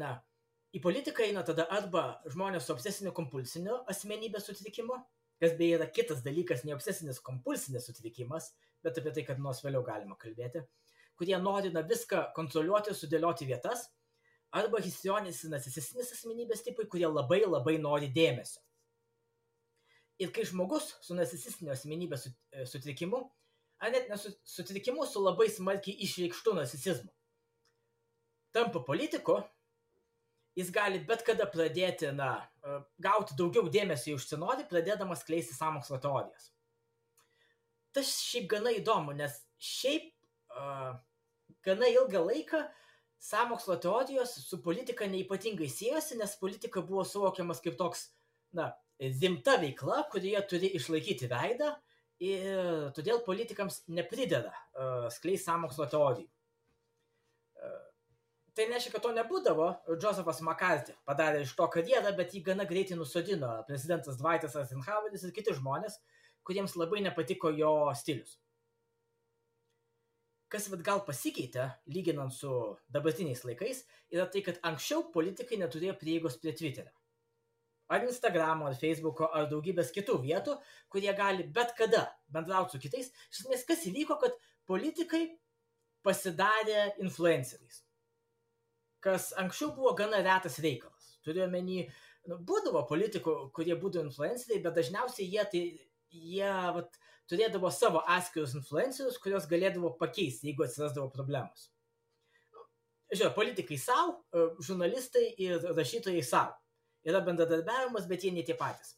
į politiką eina tada arba žmonės su obsesiniu kompulsiniu asmenybės sutrikimu, kas beje yra kitas dalykas, ne obsesinis kompulsinis sutrikimas, bet apie tai, kad nors vėliau galima kalbėti, kurie nori viską kontroliuoti, sudėlioti vietas, arba histrioninis ir narcisistinis asmenybės tipai, kurie labai labai nori dėmesio. Ir kai žmogus su narcisistiniu asmenybės sutrikimu, ar net nesutrikimu, su labai smarkiai išreikštu narcisizmu, tampa politiku, jis gali bet kada pradėti, gauti daugiau dėmesio, užsinori, pradėdamas skleisti sąmokslo teorijas. Tas šiaip gana įdomu, nes šiaip gana ilgą laiką sąmokslo teorijos su politika neypatingai siejosi, nes politika buvo suvokiamas kaip toks, rimta veikla, kurioje turi išlaikyti veidą ir todėl politikams neprideda skleisti sąmokslo teorijų. Tai nereiškia, kad to nebūdavo. Josephat McCarthy padarė iš to karjerą, bet jį gana greitai nusodino prezidentas Dwightas Eisenhoweris ir kiti žmonės, kuriems labai nepatiko jo stilius. Kas gal pasikeitė, lyginant su dabartiniais laikais, yra tai, kad anksčiau politikai neturėjo prieigos prie Twitterio. Ar Instagramo, ar Facebooko, ar daugybės kitų vietų, kurie gali bet kada bendrauti su kitais. Iš esmės, kas įvyko, kad politikai pasidarė influenceriais. Kas anksčiau buvo gana retas reikalas. Turiu omeny, būdavo politikų, kurie būdavo influenceriai, bet dažniausiai jie turėdavo savo atskirus influencerius, kurios galėdavo pakeisti, jeigu atsirasdavo problemos. Žiūrėjau, politikai savo, žurnalistai ir rašytojai savo. Yra bendradarbiavimas, bet jie ne tie patys.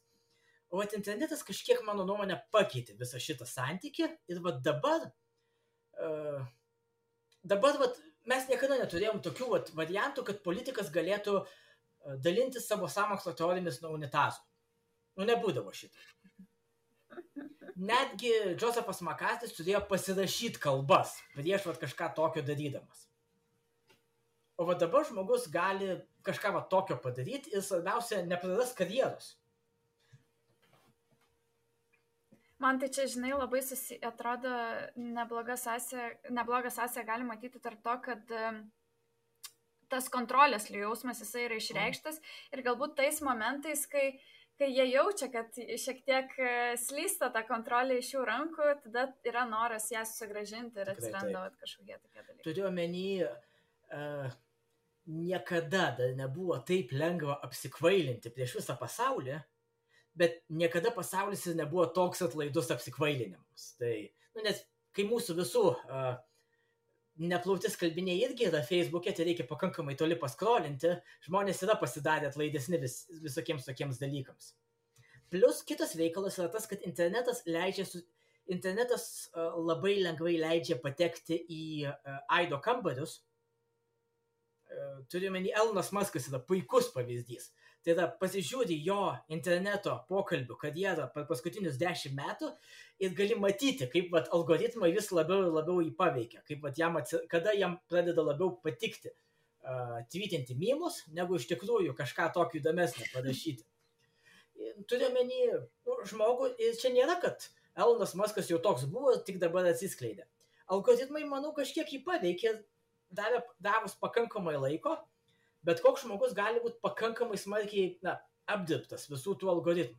O internetas kažkiek, mano nuomonė, pakeitė visą šitą santykį ir dabar mes niekada neturėjom tokių variantų, kad politikas galėtų dalintis savo sąmokslo teorijomis nuo unitazų. Nebūdavo šito. Netgi Josephas McCarthy's turėjo pasirašyti kalbas prieš kažką tokio darydamas. O dabar žmogus gali kažką tokio padaryti ir svarbiausia, nepraras karjeros. Man tai čia, žinai, labai atrodo nebloga sąsaja gali matyti tarp to, kad tas kontrolės jausmas jisai yra išreikštas ir galbūt tais momentais, kai jie jaučia, kad šiek tiek slysta ta kontrolė iš jų rankų, tada yra noras ją sugrąžinti ir atsiranda kažkokie tokie dalykai. Turiu omeny, niekada dar nebuvo taip lengva apsikvailinti prieš visą pasaulį, bet niekada pasaulis ir nebuvo toks atlaidus apsikvailinimams. Tai, nes kai mūsų visų neplauti skalbiniai irgi yra Facebook'e, tai reikia pakankamai toli paskrolinti, žmonės yra pasidarę atlaidesni visokiems tokiems dalykams. Plus kitas reikalas yra tas, kad internetas labai lengvai leidžia patekti į aido kambarius. Turiu omeny, Elonas Muskas yra puikus pavyzdys. Tai yra, pasižiūri jo interneto pokalbių karjerą per paskutinius 10 metų ir gali matyti, kaip algoritmai vis labiau ir labiau jį paveikia, kaip kada jam pradeda labiau patikti tweetinti memus, negu iš tikrųjų kažką tokio įdomesnio parašyti. Turiu omeny žmogų, ir čia nėra, kad Elonas Muskas jau toks buvo, tik dabar atsiskleidė. Algoritmai, manau, kažkiek jį paveikė, davus pakankamai laiko, bet koks žmogus gali būti pakankamai smarkiai apdirbtas visų tų algoritmų.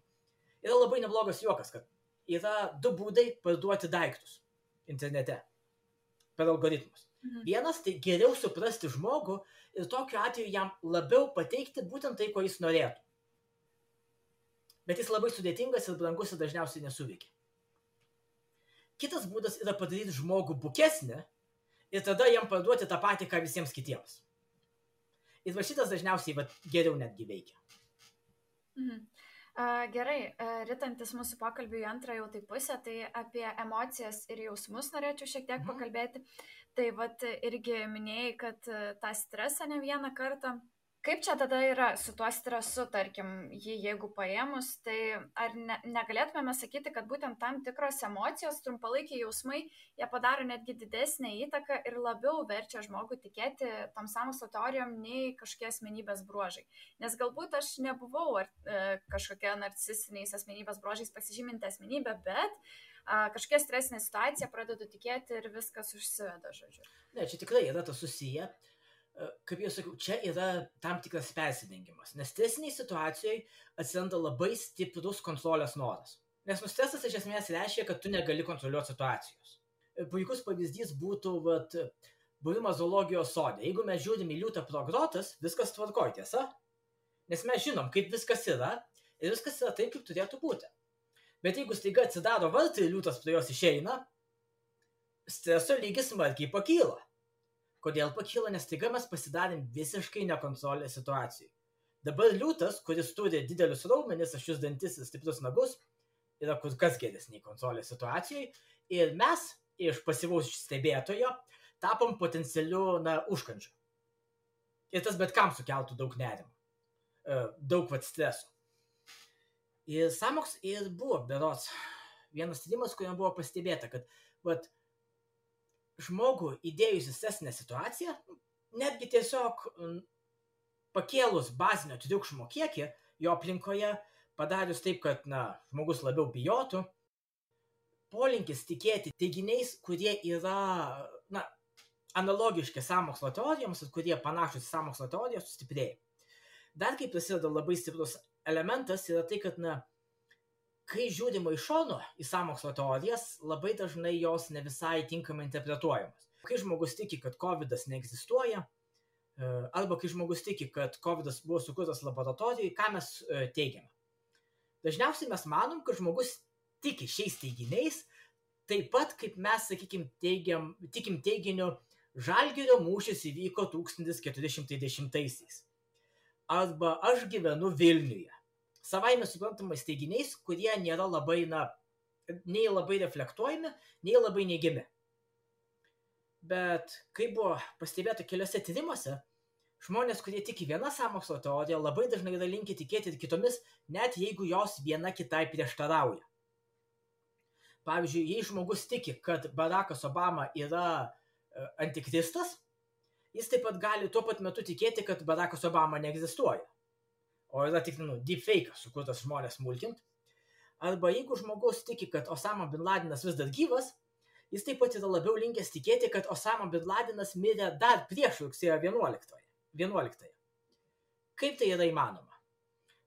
Yra labai neblogas juokas, kad yra 2 būdai parduoti daiktus internete per algoritmus. Vienas, tai geriau suprasti žmogų ir tokiu atveju jam labiau pateikti būtent tai, ko jis norėtų. Bet jis labai sudėtingas ir brangus ir dažniausiai nesuveikia. Kitas būdas yra padaryti žmogų bukesnį ir tada jam parduoti tą patį, ką visiems kitiems. Ir šitas dažniausiai geriau netgi veikia. Gerai, ritantis mūsų pokalbių į antrą jau tai pusę, tai apie emocijas ir jausmus norėčiau šiek tiek pakalbėti. Tai irgi minėjai, kad tą stresą ne vieną kartą. Kaip čia tada yra su tuo stresu, tarkim, jeigu paėmus, tai ar negalėtume sakyti, kad būtent tam tikros emocijos, trumpalaikiai jausmai, jie padaro netgi didesnę įtaką ir labiau verčia žmogų tikėti tom sąmokslo teorijom nei kažkokie asmenybės bruožai. Nes galbūt aš nebuvau kažkokia narcisiniais asmenybės bruožais pasižyminti asmenybė, bet kažkokia stresinė situacija pradedu tikėti ir viskas užsiveda, žodžiu. Ne, čia tikrai yra tas susiję. Kaip jau sakiau, čia yra tam tikras persidengimas, nes stresiniai situacijoje atsiranda labai stiprus kontrolės noras. Nes stresas iš esmės reiškia, kad tu negali kontroliuoti situacijos. Puikus pavyzdys būtų buvimas zoologijos sode. Jeigu mes žiūrim į liūtą pro grotas, viskas tvarkoj, tiesa? Nes mes žinom, kaip viskas yra ir viskas yra taip, kaip turėtų būti. Bet jeigu staiga atsidaro vartai ir liūtas prie jos išeina, streso lygis smarkiai pakyla. Kodėl pakyla? Nes staiga mes pasidarėm visiškai nekontrolės situacijai. Dabar liūtas, kuris turi didelius raumenis, aštrius dantis ir stiprius nagus, yra kur kas geresnė kontrolės situacijai. Ir mes iš pasyvaus stebėtojo tapom potencialiu užkandžiu. Ir tas bet kam sukeltų daug nerimo. Daug streso. Ir sąmokslas ir buvo berods vienas tyrimas, kuriam buvo pastebėta, kad vat, žmogų įdėjus į stresinę situaciją, netgi tiesiog pakėlus bazinio triukšmo kiekį jo aplinkoje, padarius taip, kad žmogus labiau bijotų, polinkis tikėti teiginiais, kurie yra analogiški sąmokslo teorijoms ir kurie panašus į sąmokslo teoriją, sustiprėja. Dar kaip prasideda labai stiprus elementas yra tai, kad kai žiūrima iš šono į sąmokslo teorijas, labai dažnai jos ne visai tinkamai interpretuojamos. Kai žmogus tiki, kad COVID-as neegzistuoja, arba kai žmogus tiki, kad COVID-as buvo sukurtas laboratorijai, ką mes teigiame? Dažniausiai mes manom, kad žmogus tiki šiais teiginiais, taip pat kaip mes, sakykime, tikim teiginiu Žalgirio mūšis įvyko 1410-aisiais. Arba aš gyvenu Vilniuje. Savaime suprantamais teiginiais, kurie nėra labai, nei labai reflektuojami, nei labai neigiami. Bet kaip buvo pastebėta keliose tyrimuose, žmonės, kurie tiki vieną sąmokslo teoriją, labai dažnai yra linkę tikėti ir kitomis, net jeigu jos viena kitai prieštarauja. Pavyzdžiui, jei žmogus tiki, kad Barackas Obama yra antikristas, jis taip pat gali tuo pat metu tikėti, kad Barackas Obama neegzistuoja. O yra tik deepfake'as, sukurtas žmonės mulkint. Arba jeigu žmogus tiki, kad Osama bin Ladenas vis dar gyvas, jis taip pat yra labiau linkęs tikėti, kad Osama bin Ladenas mirė dar prieš rugsėjo 11. Kaip tai yra įmanoma?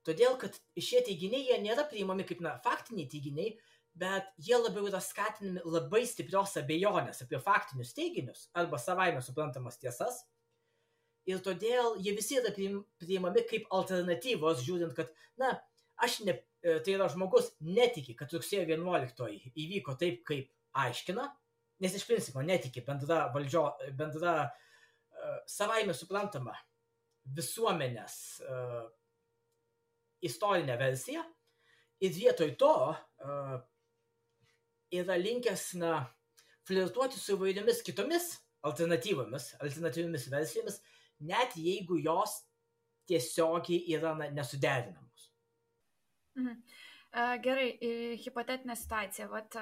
Todėl, kad šie teiginiai jie nėra priimami kaip faktiniai teiginiai, bet jie labiau yra skatinami labai stiprios abejonės apie faktinius teiginius arba savaime suprantamas tiesas. Ir todėl jie visi yra priimami kaip alternatyvos, žiūrint, kad, tai yra žmogus netiki, kad rugsėjo 11 įvyko taip, kaip aiškina, nes iš principo netiki bendra savaime suprantama visuomenės istorinė versija. Ir vietoj to yra linkęs flirtuoti su įvairiomis kitomis alternatyviomis versijomis, net jeigu jos tiesiogiai yra nesuderinamos. Gerai, hipotetinė situacija. Vat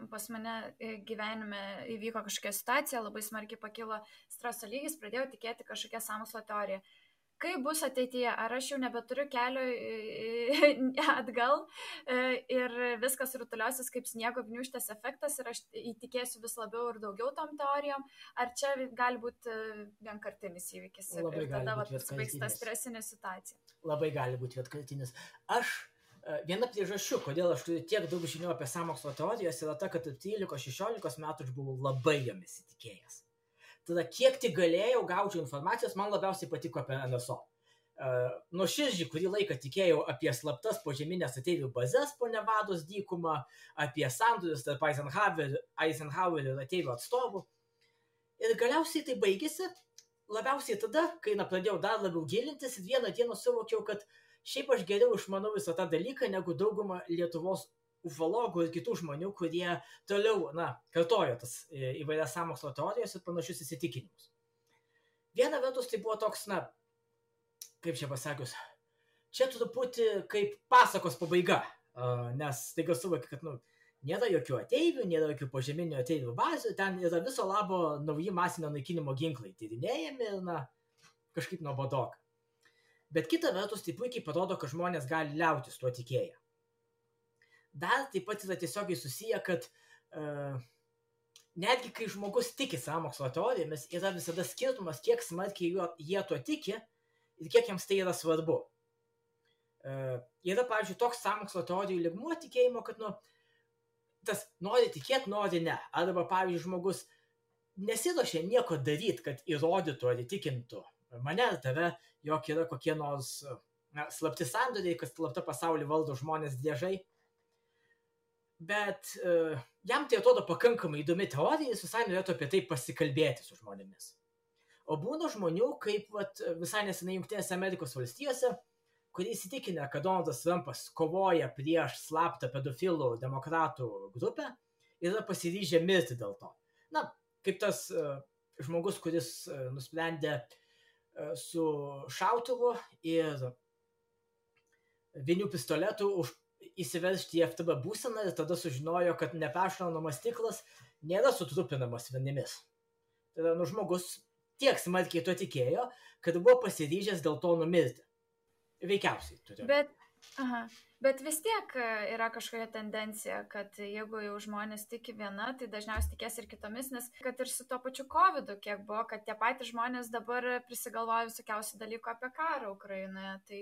pas mane gyvenime įvyko kažkokia situacija, labai smarkiai pakilo streso lygis, pradėjau tikėti kažkokią sąmokslo teoriją. Kaip bus ateityje? Ar aš jau nebeturiu kelio atgal ir viskas rutuliosis kaip sniego gniūžtės efektas ir aš įtikėsiu vis labiau ir daugiau tom teorijom? Ar čia gali būti vienkartinis įvykis ir tada pasibaigs ta stresinė situacija? Labai gali būti vienkartinis. Viena priežasčių, kodėl aš turiu tiek daug žinių apie sąmokslo teorijas, yra ta, kad 13-16 metų aš buvau labai jomis įtikėjęs. Tada kiek tik galėjau, gaučiau informacijos, man labiausiai patiko apie NSO. Nuoširdžiai kurį laiką tikėjau apie slaptas požeminės ateivių bazės po Nevados dykumą, apie sandorius tarp Eisenhower ir ateivių atstovų. Ir galiausiai tai baigėsi, labiausiai tada, kai pradėjau dar labiau gilintis ir vieną dieną suvokiau, kad šiaip aš geriau išmanau visą tą dalyką, negu dauguma Lietuvos ufologų ir kitų žmonių, kurie toliau, kartojo tas įvairias sąmokslo teorijas ir panašius įsitikinimus. Viena vertus tai buvo toks, kaip čia pasakius, čia truputį kaip pasakos pabaiga, nes taiga suvokia, kad, nėra jokių ateivių, nėra jokių požeminių ateivių bazių, ten yra viso labo nauji masinio naikinimo ginklai tyrinėjami ir, kažkaip nuobodoka. Bet kita vertus tai puikiai parodo, kad žmonės gali liautis tuo tikėję. Dar taip pat yra tiesiogiai susiję, kad netgi kai žmogus tiki sąmokslo teorijomis, yra visada skirtumas, kiek smarkiai jie tuo tiki ir kiek jiems tai yra svarbu. Yra, pavyzdžiui, toks sąmokslo teorijų lygmuo tikėjimo, kad, tas nori tikėti, nori ne. Arba, pavyzdžiui, žmogus nesiruošia nieko daryti, kad įrodytų ar įtikintų mane ar tave, jog yra kokie nors slapti sandoriai, kad slapta pasaulį valdo žmonės driežai. Bet jam tai atrodo pakankamai įdomi teorija, jis visai norėtų apie tai pasikalbėti su žmonėmis. O būna žmonių, kaip visai nesenai Jungtinėse Amerikos valstijose, kurie įsitikinę, kad Donaldas Trumpas kovoja prieš slaptą pedofilų demokratų grupę ir yra pasiryžę mirti dėl to. Kaip tas žmogus, kuris nusprendė su šautuvu ir vinių pistoletu įsiveržti į FTB būseną ir tada sužinojo, kad neperšaunamas stiklas nėra sutrupinamas vinimis. Tada žmogus tiek smarkiai to tikėjo, kad buvo pasiryžęs dėl to numirti. Veikiausiai turiu. Bet vis tiek yra kažkokia tendencija, kad jeigu jau žmonės tiki viena, tai dažniausiai tikės ir kitomis, nes kad ir su to pačiu COVID, kiek buvo, kad tie patys žmonės dabar prisigalvoja visokiausių dalykų apie karą Ukrainoje, tai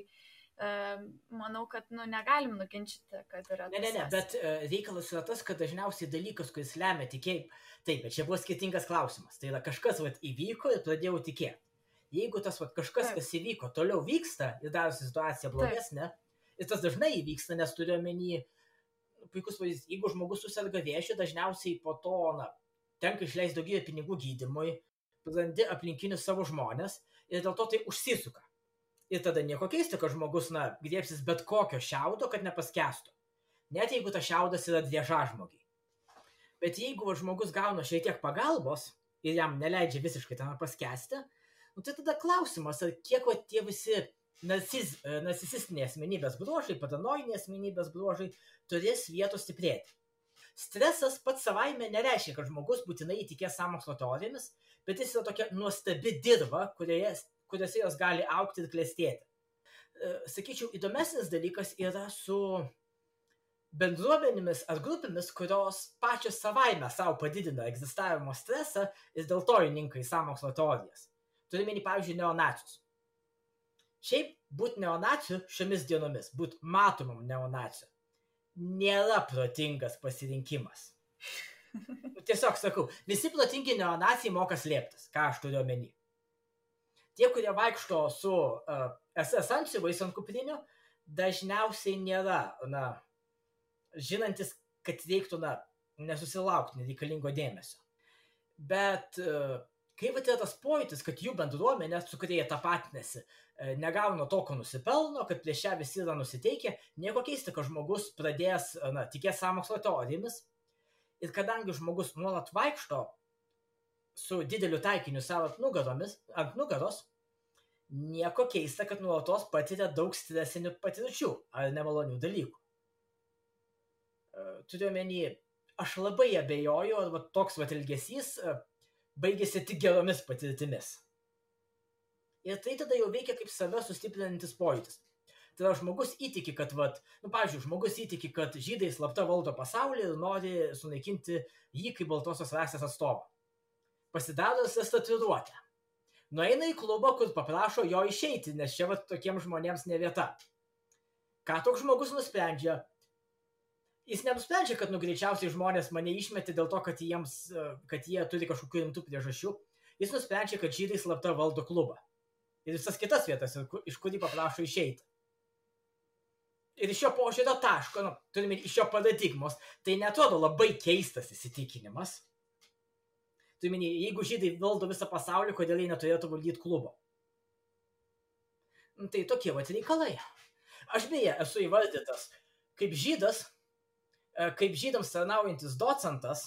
manau, kad negalim nuginčyti, kad yra tas. Ne, bet reikalas yra tas, kad dažniausiai dalykas, kuris lemia tikėjimą, taip, bet čia buvo skirtingas klausimas, tai yra kažkas įvyko ir pradėjau tikėti. Jeigu tas kažkas, kas įvyko, toliau vyksta ir darosi situacija blogesnė, ir tas dažnai įvyksta, nes turiu omeny, puikus pavyzdys, jeigu žmogus susirga vėžiu, dažniausiai po to tenka išleisti daugybę pinigų gydymui, prarandi aplinkinius savo žmonės ir dėl to tai užsisuka. Ir tada nieko keista, kad žmogus griebsis bet kokio šiaudo, kad nepaskestų. Net jeigu tas šiaudas yra driežažmogiai. Bet jeigu žmogus gauna šiek tiek pagalbos ir jam neleidžia visiškai tam paskesti, tai tada klausimas, ar kiek tie visi narcisistiniai asmenybės bruožai, paranojiniai asmenybės bruožai turės vietos stiprėti. Stresas pats savaime nereiškia, kad žmogus būtinai įtikės sąmokslo teorijomis, bet jis yra tokia nuostabi dirva, kuriuose jos gali augti ir klestėti. Sakyčiau, įdomesnis dalykas yra su bendruomenėmis ar grupėmis, kurios pačios savaime savo padidina egzistavimo stresą ir dėl to įninka į sąmokslo teorijas. Turime, pavyzdžiui, neonacius. Šiaip būti neonaciu šiomis dienomis, būti matomam neonaciu, nėra protingas pasirinkimas. Tiesiog sakau, visi protingi neonacijai moka slėptis, ką aš turiu omeny. Tie, kurie vaikšto su SS antsiuvais ant kuprinių, dažniausiai nėra, žinantis, kad reiktų, nesusilaukti nereikalingo dėmesio. Bet kai yra tas pojūtis, kad jų bendruomenė, su kurie jie tapatinasi, negauna to, ko nusipelno, kad prieš ją visi yra nusiteikę, nieko keista, kad žmogus pradės tikėti sąmokslo teorijomis. Ir kadangi žmogus nuolat vaikšto su dideliu taikiniu savo ant nugaros, nieko keista, kad nuolatos patiria daug stresinių patirčių ar nemalonių dalykų. Turiu omeny, aš labai abejoju, ar toks elgesys baigėsi tik geromis patirtimis. Ir tai tada jau veikia kaip save sustiprinantis pojūtis. Tada žmogus įtiki, kad, žmogus įtiki, kad žydai slapta valdo pasaulį ir nori sunaikinti jį kaip baltosios rasės atstovą. Pasidaro tatuiruotę. Nueina į klubą, kur paprašo jo išeiti, nes čia tokiems žmonėms ne vieta. Ką toks žmogus nusprendžia? Jis nenusprendžia, kad greičiausiai žmonės mane išmetė dėl to, kad jie turi kažkokių rimtų priežasčių. Jis nusprendžia, kad žydai slapta valdo klubą. Ir visas kitas vietas, iš kurį paprašo išeiti. Ir iš šio požiūrio taško, turime iš šio paradigmos, tai netrodo labai keistas įsitikinimas. Turime, jeigu žydai valdo visą pasaulį, kodėl jie neturėtų valdyti klubo. Tai tokie reikalai. Aš beje esu įvardytas kaip žydas, kaip žydams tarnaujantis docentas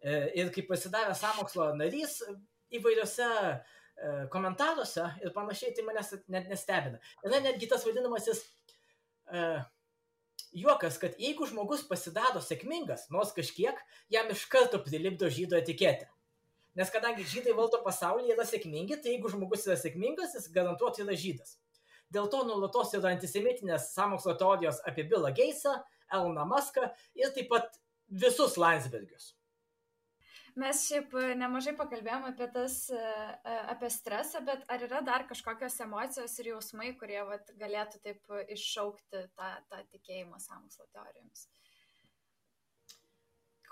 ir kaip pasidavęs sąmokslo narys įvairiose komentaruose ir panašiai, tai manęs net nestebina. Yra netgi tas vadinamasis juokas, kad jeigu žmogus pasidaro sėkmingas, nors kažkiek, jam iš karto prilipdo žydo etiketę. Nes kadangi žydai valdo pasaulį, yra sėkmingi, tai jeigu žmogus yra sėkmingas, jis garantuotai yra žydas. Dėl to nuolatos yra antisemitinės sąmokslo teorijos apie Billą Gatesą, Eloną Muską ir taip pat visus Landsbergius. Mes šiaip nemažai pakalbėjom apie stresą, bet ar yra dar kažkokios emocijos ir jausmai, kurie galėtų taip iššaukti tą tikėjimą sąmokslo teorijomis?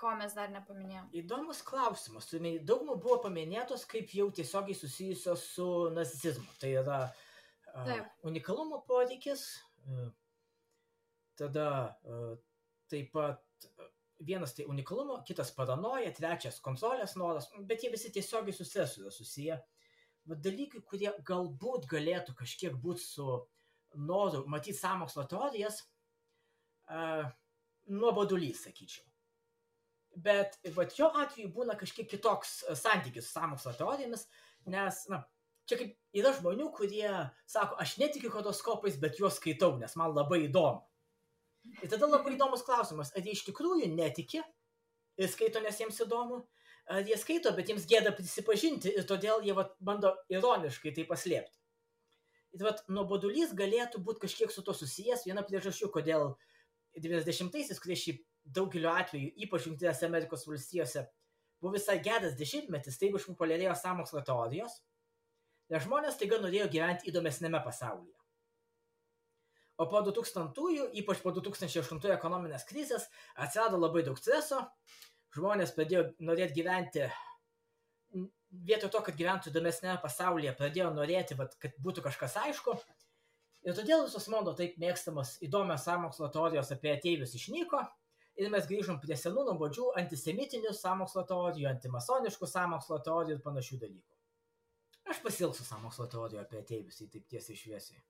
Ko mes dar nepaminėjom? Įdomus klausimas. Daugumą buvo paminėtos kaip jau tiesiogiai susijusios su narcisizmu. Tai yra unikalumo poreikis, tada taip pat vienas tai unikalumo, kitas paranoja, trečias kontrolės noras, bet jie visi tiesiogiai su stresu yra susiję. Dalykai, kurie galbūt galėtų kažkiek būti su noru matyti sąmokslo teorijas, nuobodulys, sakyčiau. Bet jo atveju būna kažkiek kitoks santykis su sąmokslo teorijomis, nes, čia kaip yra žmonių, kurie sako, aš netikiu horoskopais, bet juos skaitau, nes man labai įdomu. Ir tada labai įdomus klausimas, ar jie iš tikrųjų netiki ir skaito, nes jiems įdomu, ar jie skaito, bet jiems gėda prisipažinti ir todėl jie bando ironiškai tai paslėpti. Ir nuobodulys galėtų būti kažkiek su to susijęs. Viena priežasčių, kodėl 90-aisiais, kurie šiaip daugeliu atveju, ypač Jungtinėse Amerikos valstijose, buvo visai geras dešimtmetis, taip išpopuliarėjo sąmokslo teorijos, nes žmonės taiga norėjo gyventi įdomesnėme pasaulyje. O po 2000-ųjų, ypač po 2008 ekonominės krizės, atsirado labai daug streso, žmonės pradėjo norėti gyventi, vietoj to, kad gyventų įdomesnėme pasaulyje, pradėjo norėti, kad būtų kažkas aišku. Ir todėl visos mano taip mėgstamos įdomios sąmokslo teorijos apie ateivius išnyko ir mes grįžom prie senų nuobodžių antisemitinių sąmokslo teorijų, antimasoniškų sąmokslo teorijų ir panašių dalykų. Aš pasilgsiu sąmokslo teorijų apie ateivius, į taip tiesiai šviesiai.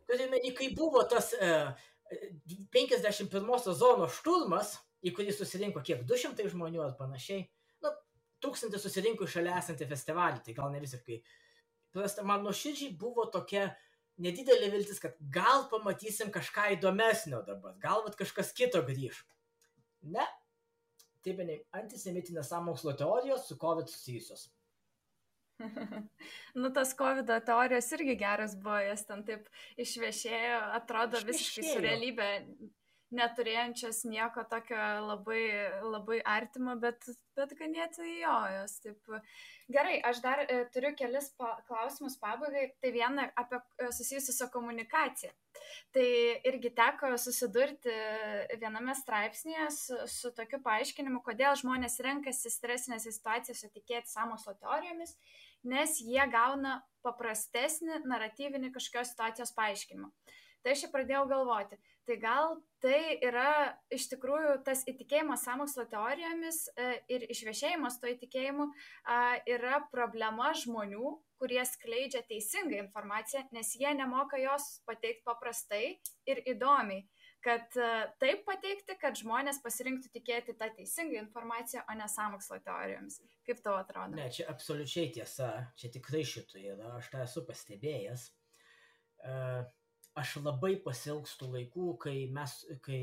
Turime, kai buvo tas 51 zonos šturmas, į kurį susirinko kiek 200 žmonių ar panašiai, 1000 susirinko šalia esantį festivalį, tai gal ne visiškai. Man nuoširdžiai buvo tokia nedidelė viltis, kad gal pamatysim kažką įdomesnio dabar, gal kažkas kito grįž. Ne, taip ne, antisemitinės sąmokslo teorijos su COVID susijusios. Tas COVID teorijos irgi geras buvo, jas ten taip išviešėjo, atrodo visiškai su realybė neturėjančios nieko tokio labai, labai artimo, bet ganėtinai jos. Taip. Gerai, aš dar turiu kelis klausimus pabaigai. Tai viena apie susijusi su komunikacija. Tai irgi teko susidurti viename straipsnėje su tokiu paaiškinimu, kodėl žmonės renkasi stresinėse situacijose tikėti sąmokslo teorijomis, nes jie gauna paprastesnį naratyvinį kažkokios situacijos paaiškinimą. Tai aš pradėjau galvoti, tai gal tai yra iš tikrųjų tas įtikėjimas sąmokslo teorijomis ir išviešėjimas to įtikėjimu yra problema žmonių, kurie skleidžia teisingą informaciją, nes jie nemoka jos pateikti paprastai ir įdomiai. Kad taip pateikti, kad žmonės pasirinktų tikėti tą teisingą informaciją, o ne sąmokslo teorijomis. Kaip tau atrodo? Ne, čia absoliučiai tiesa, čia tikrai šito yra, aš tą esu pastebėjęs. Aš labai pasilgstu laikų, kai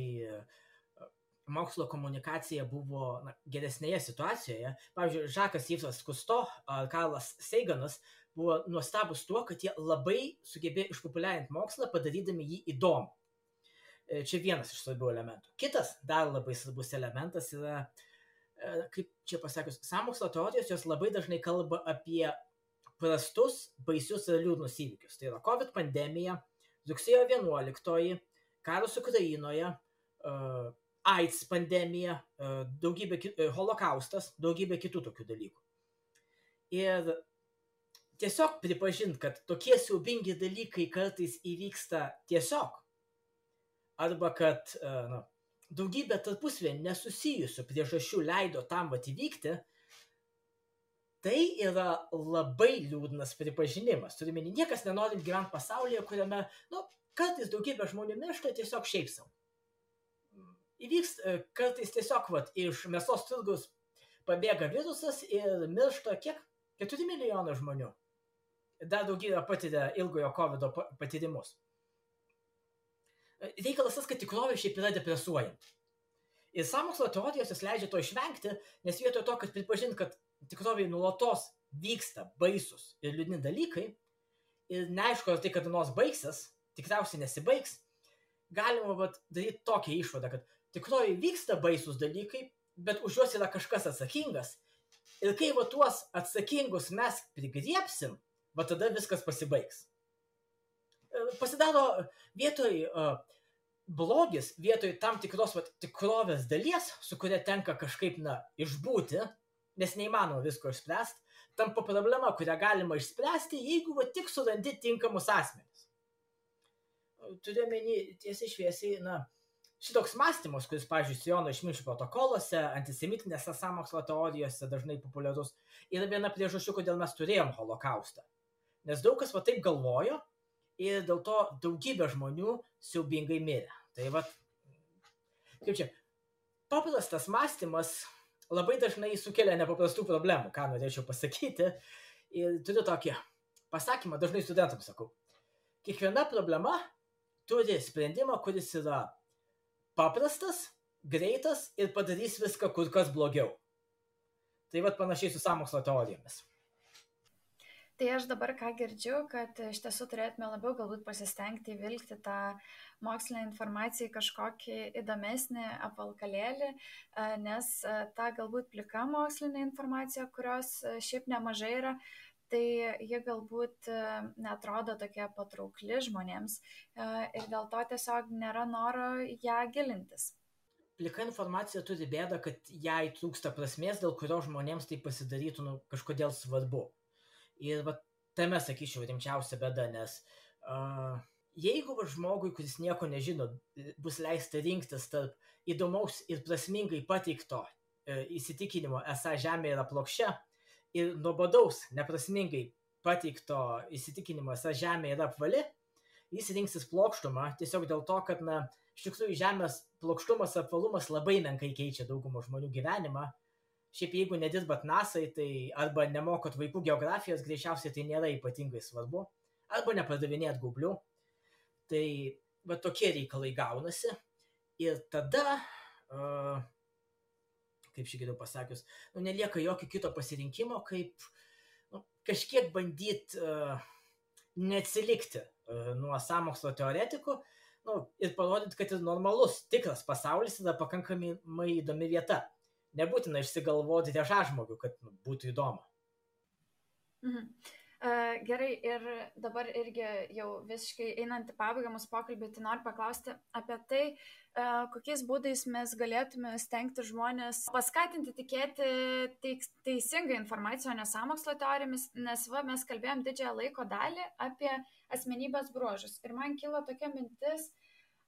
mokslo komunikacija buvo geresnėje situacijoje. Pavyzdžiui, Žakas Yvesas Kusto ar Karlas Saganas buvo nuostabus tuo, kad jie labai sugebėjo išpopuliarinti mokslą, padarydami jį įdomų. Čia vienas iš svarbių elementų. Kitas dar labai svarbus elementas yra, kaip čia pasakius, sąmokslo teorijos, jos labai dažnai kalba apie prastus, baisius ir liūdnus įvykius. Tai yra COVID pandemija, rugsėjo 11, karas Ukrainoje, AIDS pandemija, holokaustas, daugybė kitų tokių dalykų. Ir tiesiog pripažinti, kad tokie siaubingi dalykai kartais įvyksta tiesiog, arba kad daugybė tarpusavy nesusijusių priežasčių leido tam įvykti, tai yra labai liūdnas pripažinimas. Turime, niekas nenori gyventi pasaulyje, kuriame, kartais daugybė žmonių miršta tiesiog šiaip savo. Įvyks kartais tiesiog, iš mėsos turgus pabėga virusas ir miršta kiek? 4 milijonai žmonių. Dar daugybė patiria ilgojo COVID patyrimus. Reikalas tas, kad tikrovė šiaip yra depresuojanti. Ir sąmokslo teorijos jis leidžia to išvengti, nes vietoj to, kad pripažinti, kad tikrovėje nuolatos vyksta baisus ir liūdni dalykai ir neaišku, ar tai kada nors baigsis, tikriausiai nesibaigs, galima daryti tokią išvadą, kad tikrovėje vyksta baisus dalykai, bet už juos yra kažkas atsakingas ir kai tuos atsakingus mes prigriepsim, tada viskas pasibaigs. Pasidaro vietoj blogis, vietoj tam tikros tikrovės dalies, su kuria tenka kažkaip išbūti, nes neįmanoma visko išspręsti, tampa problema, kurią galima išspręsti, jeigu tik surandi tinkamus asmenis. Turiu omeny tiesiai šviesiai, šitoks mąstymas, kuris, pavyzdžiui, Siono išminčių protokoluose, antisemitinėse sąmokslo teorijose dažnai populiarus, yra viena priežasčių, kodėl mes turėjom holokaustą. Nes daug kas taip galvojo ir dėl to daugybė žmonių siaubingai mirė. Tai kaip čia, paprastas mąstymas labai dažnai sukelia nepaprastų problemų, ką norėčiau pasakyti. Ir turiu tokį pasakymą, dažnai studentams sakau. Kiekviena problema turi sprendimą, kuris yra paprastas, greitas ir padarys viską kur kas blogiau. Tai vat panašiai su sąmokslo teorijomis. Tai aš dabar ką girdžiu, kad iš tiesų turėtume labiau galbūt pasistengti įvilkti tą mokslinę informaciją į kažkokį įdomesnį apvalkalėlį, nes ta galbūt plika mokslinė informacija, kurios šiaip nemažai yra, tai ji galbūt netrodo tokia patraukli žmonėms ir dėl to tiesiog nėra noro ją gilintis. Plika informacija turi bėdą, kad jai trūksta prasmės, dėl kurio žmonėms tai pasidarytų kažkodėl svarbu. Ir tame, sakyčiau, rimčiausia bėda, nes jeigu žmogui, kuris nieko nežino, bus leista rinktis tarp įdomaus ir prasmingai pateikto įsitikinimo, esą Žemė yra plokščia, ir nuobodaus, neprasmingai pateikto įsitikinimo, esą Žemė yra apvali, jis rinksis plokštumą tiesiog dėl to, kad, iš tikrųjų, Žemės plokštumas, apvalumas labai menkai keičia daugumą žmonių gyvenimą. Šiaip jeigu nedirbat NASA-ai, tai arba nemokot vaikų geografijos, greičiausiai tai nėra ypatingai svarbu, arba nepardavinėt gaublių. Tai tokie reikalai gaunasi. Ir tada, kaip šį geriau pasakius, nelieka jokio kito pasirinkimo, kaip kažkiek bandyti neatsilikti nuo sąmokslo teoretikų, ir parodyti, kad ir normalus, tikras pasaulis yra pakankamai įdomi vieta. Nebūtina išsigalvoti dėžažmogių, kad būtų įdomu. Gerai, ir dabar irgi jau visiškai einant į pabaigą mūsų pokalbį, tai noriu paklausti apie tai, kokiais būdais mes galėtume stengti žmonės paskatinti tikėti teisingą informaciją, o ne sąmokslo teorijomis, nes mes kalbėjom didžiąją laiko dalį apie asmenybės bruožus. Ir man kilo tokia mintis,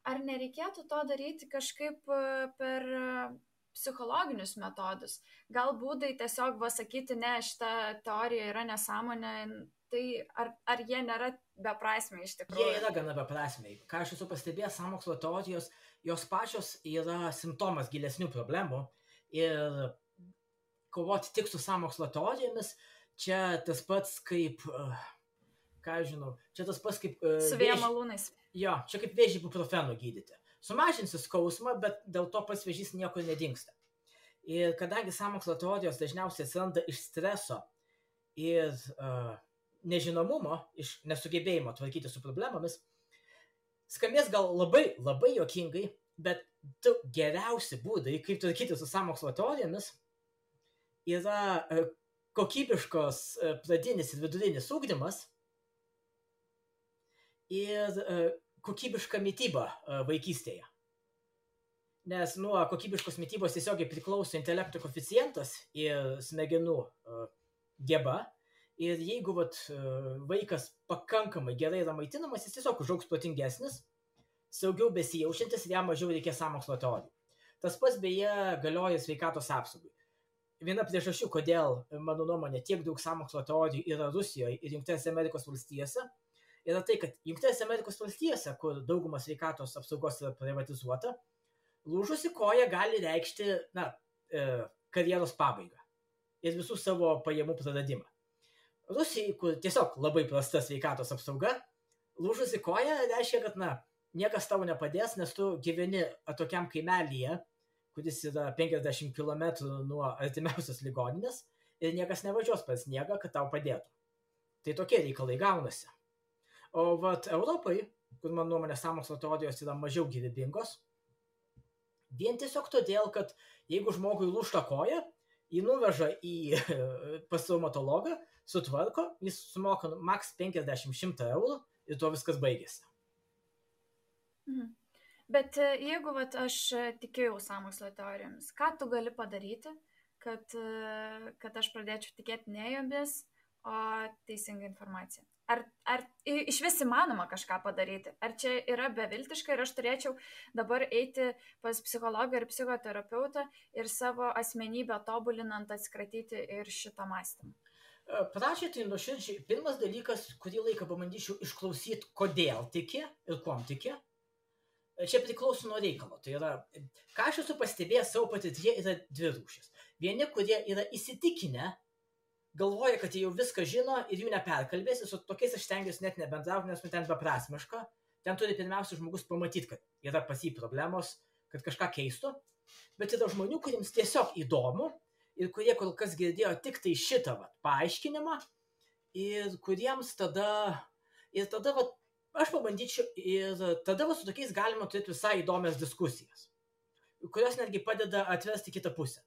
ar nereikėtų to daryti kažkaip per psichologinius metodus. Gal būdai tiesiog sakyti, ne, šita teorija yra nesąmonė, tai ar jie nėra beprasmiai iš tikrųjų? Jie yra gana beprasmiai. Ką aš esu pastebėjęs, sąmokslo teorijos, jos pačios yra simptomas gilesnių problemų ir kovoti tik su sąmokslo teorijomis, čia tas pats kaip, ką aš žinau, čia tas pats kaip... Su vėjo malūnais. Jo, čia kaip vėžį ibuprofenu gydyti. Sumažinsi skausmą, bet dėl to pats vėžys niekur nedingsta. Ir kadangi sąmokslo teorijos dažniausiai atsiranda iš streso ir nežinomumo, iš nesugebėjimo tvarkyti su problemomis, skambės gal labai, labai juokingai, bet du geriausi būdai, kaip tvarkyti su sąmokslo teorijomis, yra kokybiškos pradinis ir vidurinis ugdymas ir kokybiška mityba vaikystėje. Nes nuo kokybiškos mitybos tiesiogiai priklauso intelekto koeficientas ir smegenų geba. Ir jeigu vaikas pakankamai gerai yra maitinamas, jis tiesiog užaugs protingesnis, saugiau besijaučiantis ir jam mažiau reikės sąmokslo teorijų. Tas pats beje galioja sveikatos apsaugai. Viena priežasčių, kodėl, mano nuomonė, tiek daug sąmokslo teorijų yra Rusijoje ir Jungtinėse Amerikos valstijose, yra tai, kad Jungtinėse Amerikos valstijose, kur dauguma sveikatos apsaugos yra privatizuota, lūžusi koja gali reikšti karjeros pabaigą ir visų savo pajamų praradimą. Rusijai, kur tiesiog labai prasta sveikatos apsauga, lūžusi koja reiškia, kad niekas tau nepadės, nes tu gyveni atokiam kaimelyje, kuris yra 50 km nuo artimiausios ligoninės ir niekas nevažiuos per sniegą, kad tau padėtų. Tai tokie reikalai gaunasi. O Europai, kur man nuomonė sąmokslo teorijos yra mažiau gyvybingos, vien tiesiog todėl, kad jeigu žmogui lūžta koja, jį nuveža pas traumatologą, sutvarko, jis sumoka maks 50-100 eurų ir to viskas baigėsi. Bet jeigu aš tikėjau sąmokslo teorijomis, ką tu gali padaryti, kad aš pradėčiau tikėti ne jomis, o teisingą informaciją? Ar iš vis įmanoma kažką padaryti? Ar čia yra beviltiška ir aš turėčiau dabar eiti pas psichologą ir psichoterapeutą ir savo asmenybę tobulinant atsikratyti ir šitą mąstymą? Pradžiai tai nuoširdžiai, pirmas dalykas, kurį laiką pabandyčiau išklausyti, kodėl tiki ir kuom tiki. Čia priklauso nuo reikalo. Tai yra, ką aš esu pastebėjęs savo patirtyje, yra dvi rūšis. Vieni, kurie yra įsitikinę, galvoja, kad jie jau viską žino ir jų neperkalbėsi, su tokiais aš stengiuosi net nebendrauti, nes ten beprasmiška. Ten turi pirmiausia žmogus pamatyti, kad yra pas jį problemos, kad kažką keistų, bet yra žmonių, kuriems tiesiog įdomu ir kurie kol kas girdėjo tik tai šitą paaiškinimą ir kuriems tada aš pabandyčiau ir tada su tokiais galima turėti visai įdomias diskusijas, kurios netgi padeda atvesti kitą pusę.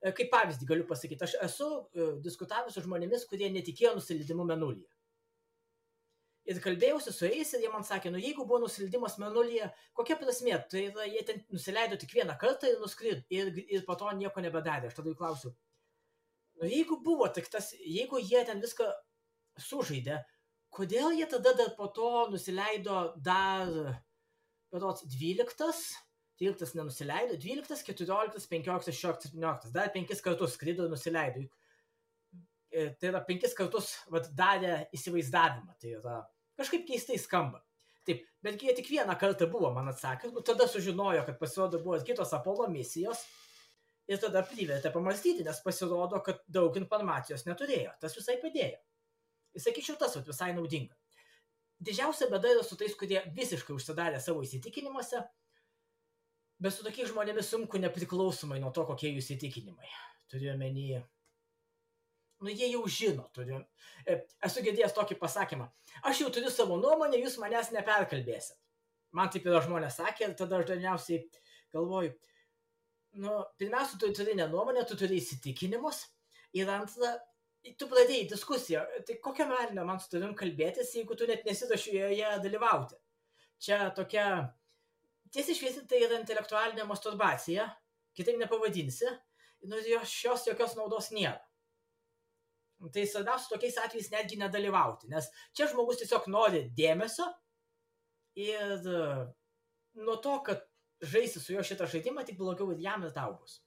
Kaip pavyzdį galiu pasakyti, aš esu diskutavęs su žmonėmis, kurie netikėjo nusileidimu Mėnulyje. Ir kalbėjausi su jais ir jie man sakė, jeigu buvo nusileidimas Mėnulyje, kokia prasmė? Tai yra, jie ten nusileido tik vieną kartą ir nuskrido ir po to nieko nebedarė. Aš tada jų klausiu, jeigu buvo tik tas, jeigu jie ten viską sužaidė, kodėl jie tada dar po to nusileido dar 12, 13 nenusileido, 12, 14, 15, 16, 17, dar 5 kartus skrido ir nusileido. Tai yra 5 kartus darė įsivaizdavimą, tai yra kažkaip keistai skamba. Taip, betgi jie tik vieną kartą buvo, man atsakė, tada sužinojo, kad pasirodo buvo kitos Apollo misijos ir tada privertė pamastyti, nes pasirodo, kad daug informacijos neturėjo, tas visai padėjo. Ir sakyčiau, tas visai naudinga. Didžiausia bėda yra su tais, kurie visiškai užsidarė savo įsitikinimuose, bet su tokiais žmonėmis sunku nepriklausomai nuo to, kokie jų įsitikinimai. Turiu omeny, jie jau žino. Esu girdėjęs tokį pasakymą, aš jau turiu savo nuomonę, jūs manęs neperkalbėsit. Man taip yra žmonės sakė ir tada aš dažniausiai galvoju, pirmiausia, tu turi ne nuomonę, tu turi įsitikinimus ir antra, tu pradėjai diskusiją, tai kokią melinę man su tavim kalbėtis, jeigu tu net nesiruoši joje dalyvauti. Čia tokia, tiesiai šviesiai, tai yra intelektualinė masturbacija, kitaip nepavadinsi, šios jokios naudos nėra. Tai svarbiausia tokiais atvejais netgi nedalyvauti, nes čia žmogus tiesiog nori dėmesio ir nuo to, kad žaisi su juo šitą žaidimą, tik blogiau ir jam ir tau bus.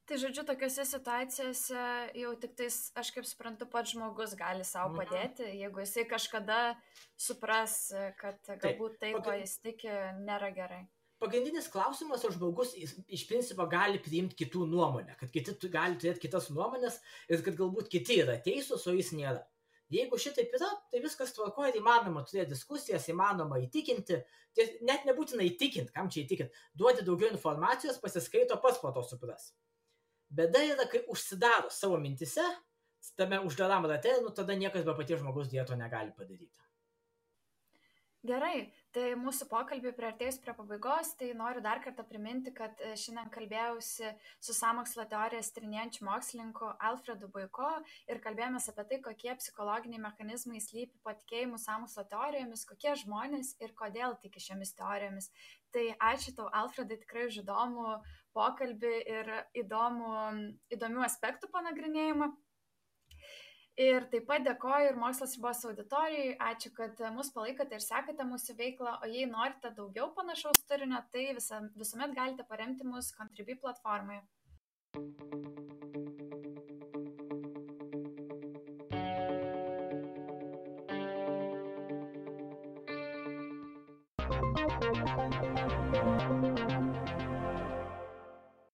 Tai žodžiu, tokiuose situacijose jau tik tais, aš kaip suprantu, pats žmogus gali savo padėti, jeigu jisai kažkada supras, kad galbūt tai, ko jis tiki, nėra gerai. Pagrindinis klausimas, ar žmogus iš principo gali priimti kitų nuomonę, kad kiti gali turėti kitas nuomonės ir kad galbūt kiti yra teisūs, o jis nėra. Jeigu šitaip yra, tai viskas tvarkoja ir įmanoma turėti diskusijas, įmanoma įtikinti, net nebūtina įtikinti, kam čia įtikinti, duoti daugiau informacijos, pasiskaito, pats po to supras. Bėda yra, kai užsidaro savo mintise, tame uždaram rate, tada niekas be paties žmogus dieto negali padaryti. Gerai, tai mūsų pokalbį priartėjus prie pabaigos, tai noriu dar kartą priminti, kad šiandien kalbėjausi su sąmokslo teorijas tyrinėjančiu mokslininku Alfredu Buiko ir kalbėjomės apie tai, kokie psichologiniai mechanizmai slypi po tikėjimu sąmokslo teorijomis, kokie žmonės ir kodėl tiki šiomis teorijomis. Tai ačiū tau, Alfredai, tikrai už įdomų pokalbį ir įdomių aspektų panagrinėjimą. Ir taip pat dėkoju ir Mokslas ribos auditorijai, ačiū, kad mus palaikote ir sekate mūsų veiklą, o jei norite daugiau panašaus turinio, tai visuomet galite paremti mus Contribui platformoje.